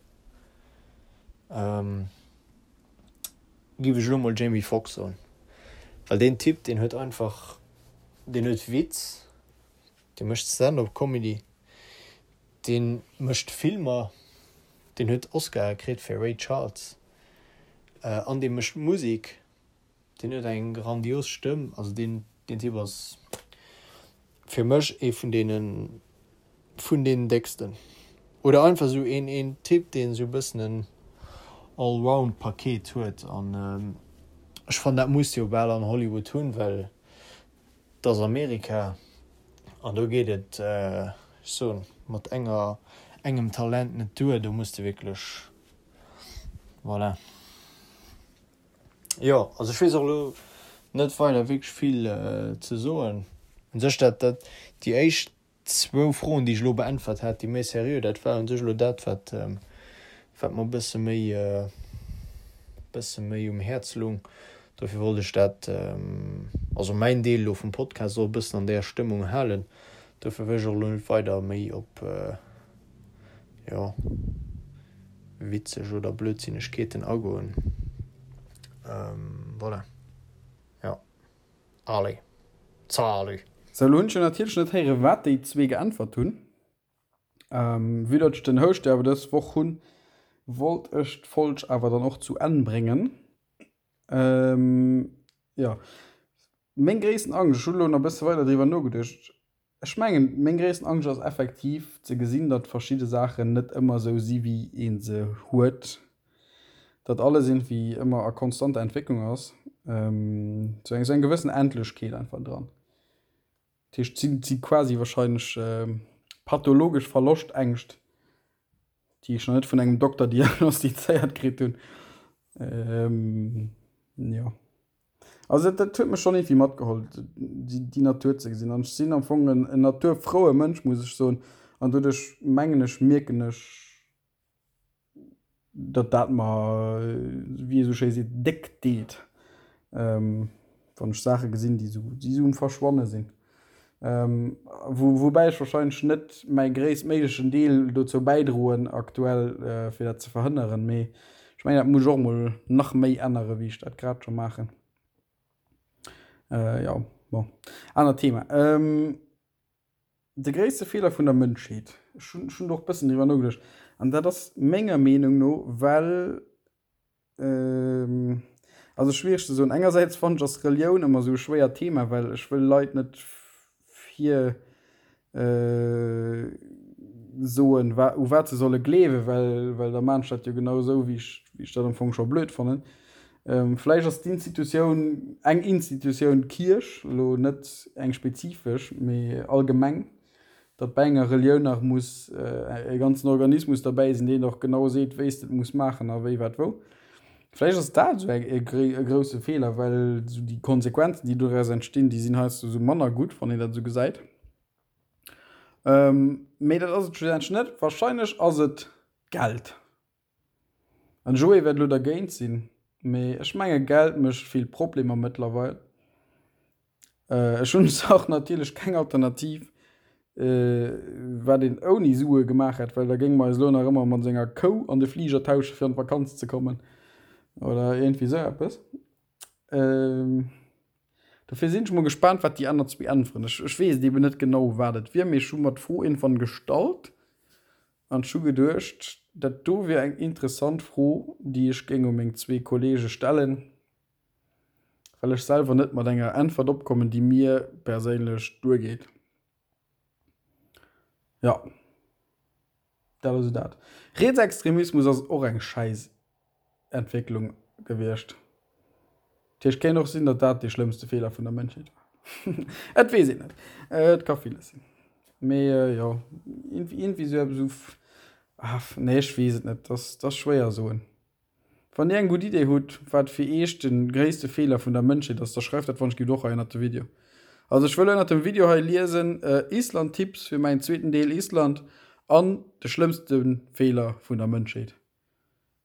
Giff ech elo mol Jamie Foxx soen, well deen Typ deen huet einfach, deen huet Witz, dee mécht Stand-up Comedy, dee mécht Filmer, deen huet Oscare kritt fir Ray Charles an dee mécht Musek. Deen huet eng grandios Stëmm, also deen deen Typ ass fir mech ee vun deenen vun deenen décksten. Oder einfach esou een een Typ deen esou e bëssen en Allround Paket huet an ech fannen dat muss de jo bal an Hollywood hunn, well et ass Amerika an do geet et ech soen mat enger engem Talent net duer, do muss de wierklech voilà. Jo, also ech weess och elo net weider wierklech vill ze soen. U sech dat, dat, déi éischt zwou Froen, déi ech elo beäntwert hat, déi méi seriö, dat war u sech elo dat, wat, wat mer e bësse méi, bësse méi um Häerz lung. Dofir wollt ech dat, also mäin Deel elo vum Podcast och e bëssen an där Stëmmung halen. Dofir wëll ech och elo net weider méi op, jo, witzeg oder Blödsinnegkeeten agoen. Voilà. Jo. Allez. Salut! Sou, elo hunn ech jo natierlech net héieren, wat déi zwee geäntwert hunn. Vue datt ech den Houscht jo awer dës Woch hunn, wollt ech d'Folg awer dann och zu Enn bréngen. Jo, meng gréissten Angscht, ech hunn elo nach e bësse weider driwwer nogeduecht, Ech mengen, meng gréissten Angscht ass effektiv ze gesinn, datt verschidde Saachen net ëmmer esou si wéi ee se huet, datt alles iergendwéi ëmmer a konstanter Entwécklung ass, sou eng sou eng gewëssen Endlechkeet einfach dran. Dat heescht, et si quasi wahrscheinlech pathologesch Verloschtängscht, déi ech nach net vun engem Dokter diagnostizéiert kritt hunn. Jo. Also dat huet mech schonn iergendwéi matgeholl, déi Natur ze gesinn. An ech sinn am Fong en naturfroue Mënsch, muss ech soen. An doduerch mengen ech, mierken ech, datt dat mer, wéi ee sou schéi seet, déck deet, wann ech Saache gesinn, déi esou um Verschwanne sinn. Woubäi ech warscheinlech net mäi gréisstméiglechen Deel dozou bäidroen aktuell, fir dat ze verhënneren. Mee ech mengen, dat muss ech och emol nach méi änneren, wéi ech dat grad scho maachen. Jo, bon, anert Thema. De gréisste Feeler vun der Mënschheet, ech hunn, ech hunn do och e bëssen driwwer nogeduecht, an dat ass menger Meenung no, well Also schwiereg ze soen. Engersäits fannen ech ass Relioun ëmmer esou e schwéiert Thema, well ech wëll Leit net vir soen wa u wat se solle gleewen, well well da maan ech dat jo genau esou wéi ech wéi ech dat am Fong scho blöd fannen. Vläicht ass d'Institutioun eng Institutioun Kierch elo net eng spezifesch, mee allgemeng. datt bäi enger Relioun nach muss e ganzen Organismus derbäi sinn, deen och genau seet, wéi s de et muss maachen a wéi, wat, wou. Vläicht ass dat esou e grousse Feeler, well esou déi Konsequenzen, déi doraus entstinn, déi sinn heiansdo esou manner gutt, wann een dat esou gesäit. Mee dat ass et schlussendlech net. Warscheinlech ass et d'Geld. An Joé wäert elo dergéint sinn, mee ech menge Geld mécht vill Problemer mëttlerweil. Ech hunn och natierlech keng Alternativ, wat een ouni Sue gemaach hätt, well da géinge mer eis elo nach ëmmer mat enger Kou an de Fliger tausche fir an d'Vakanz ze kommen oder iergendwéi esou eppes. Dofir sinn ech mol gespaant, wat déi aner zwee äntweren. Ech, ech weess et eben net genau, wat et wier, mee ech hu mer d'Fro iergendwann gestallt an ech hu geduecht, dat do wier eng interessant Fro, déi ech géing u meng zwee Kollege stellen, well ech selwer net mat enger Äntwert opkommen, déi mir perséinlech duergeet. Jo, dat ass esou dat. Rietsextremismus ass och eng schäiss Entwécklung gewiescht. Dat heescht, kéint och sinn, datt dat dee schlëmmste Feeler vun der Mënschheet war. Et weess een net. Et ka villes sinn. Mee jo, iergendwéi esou eppes esou, ah, nee, ech weess et net. Dat ass, dat ass schwéier soen. Wann dir eng gutt Idee hutt, wat fir iech de gréisste Feeler vun der Mënschheet ass, da schreift dat wann ech gitt och hei ënnert de Video. Also ech wëll ënnert dem Video hei liesen, Island Tipps fir mäin zweeten Deel Island an de schlëmmste Feeler vun der Mënschheet.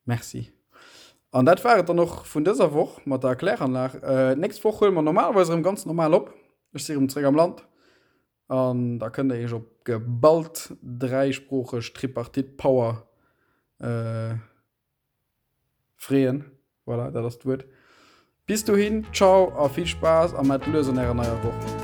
Merci. An dat war et dann och vun dëser Woch mat der Erkläranlag. D'nächst Woch huele mer normalerweis erëm ganz normal op. Ech si erëm zréck am Land an da kënnt der iech op geballt dräisproocheg Tripartite Power Freeën, voilà, dat ass d'Wuert. Bis dohin, ciao a vill Spaass a mat lues an ärer neier Woch.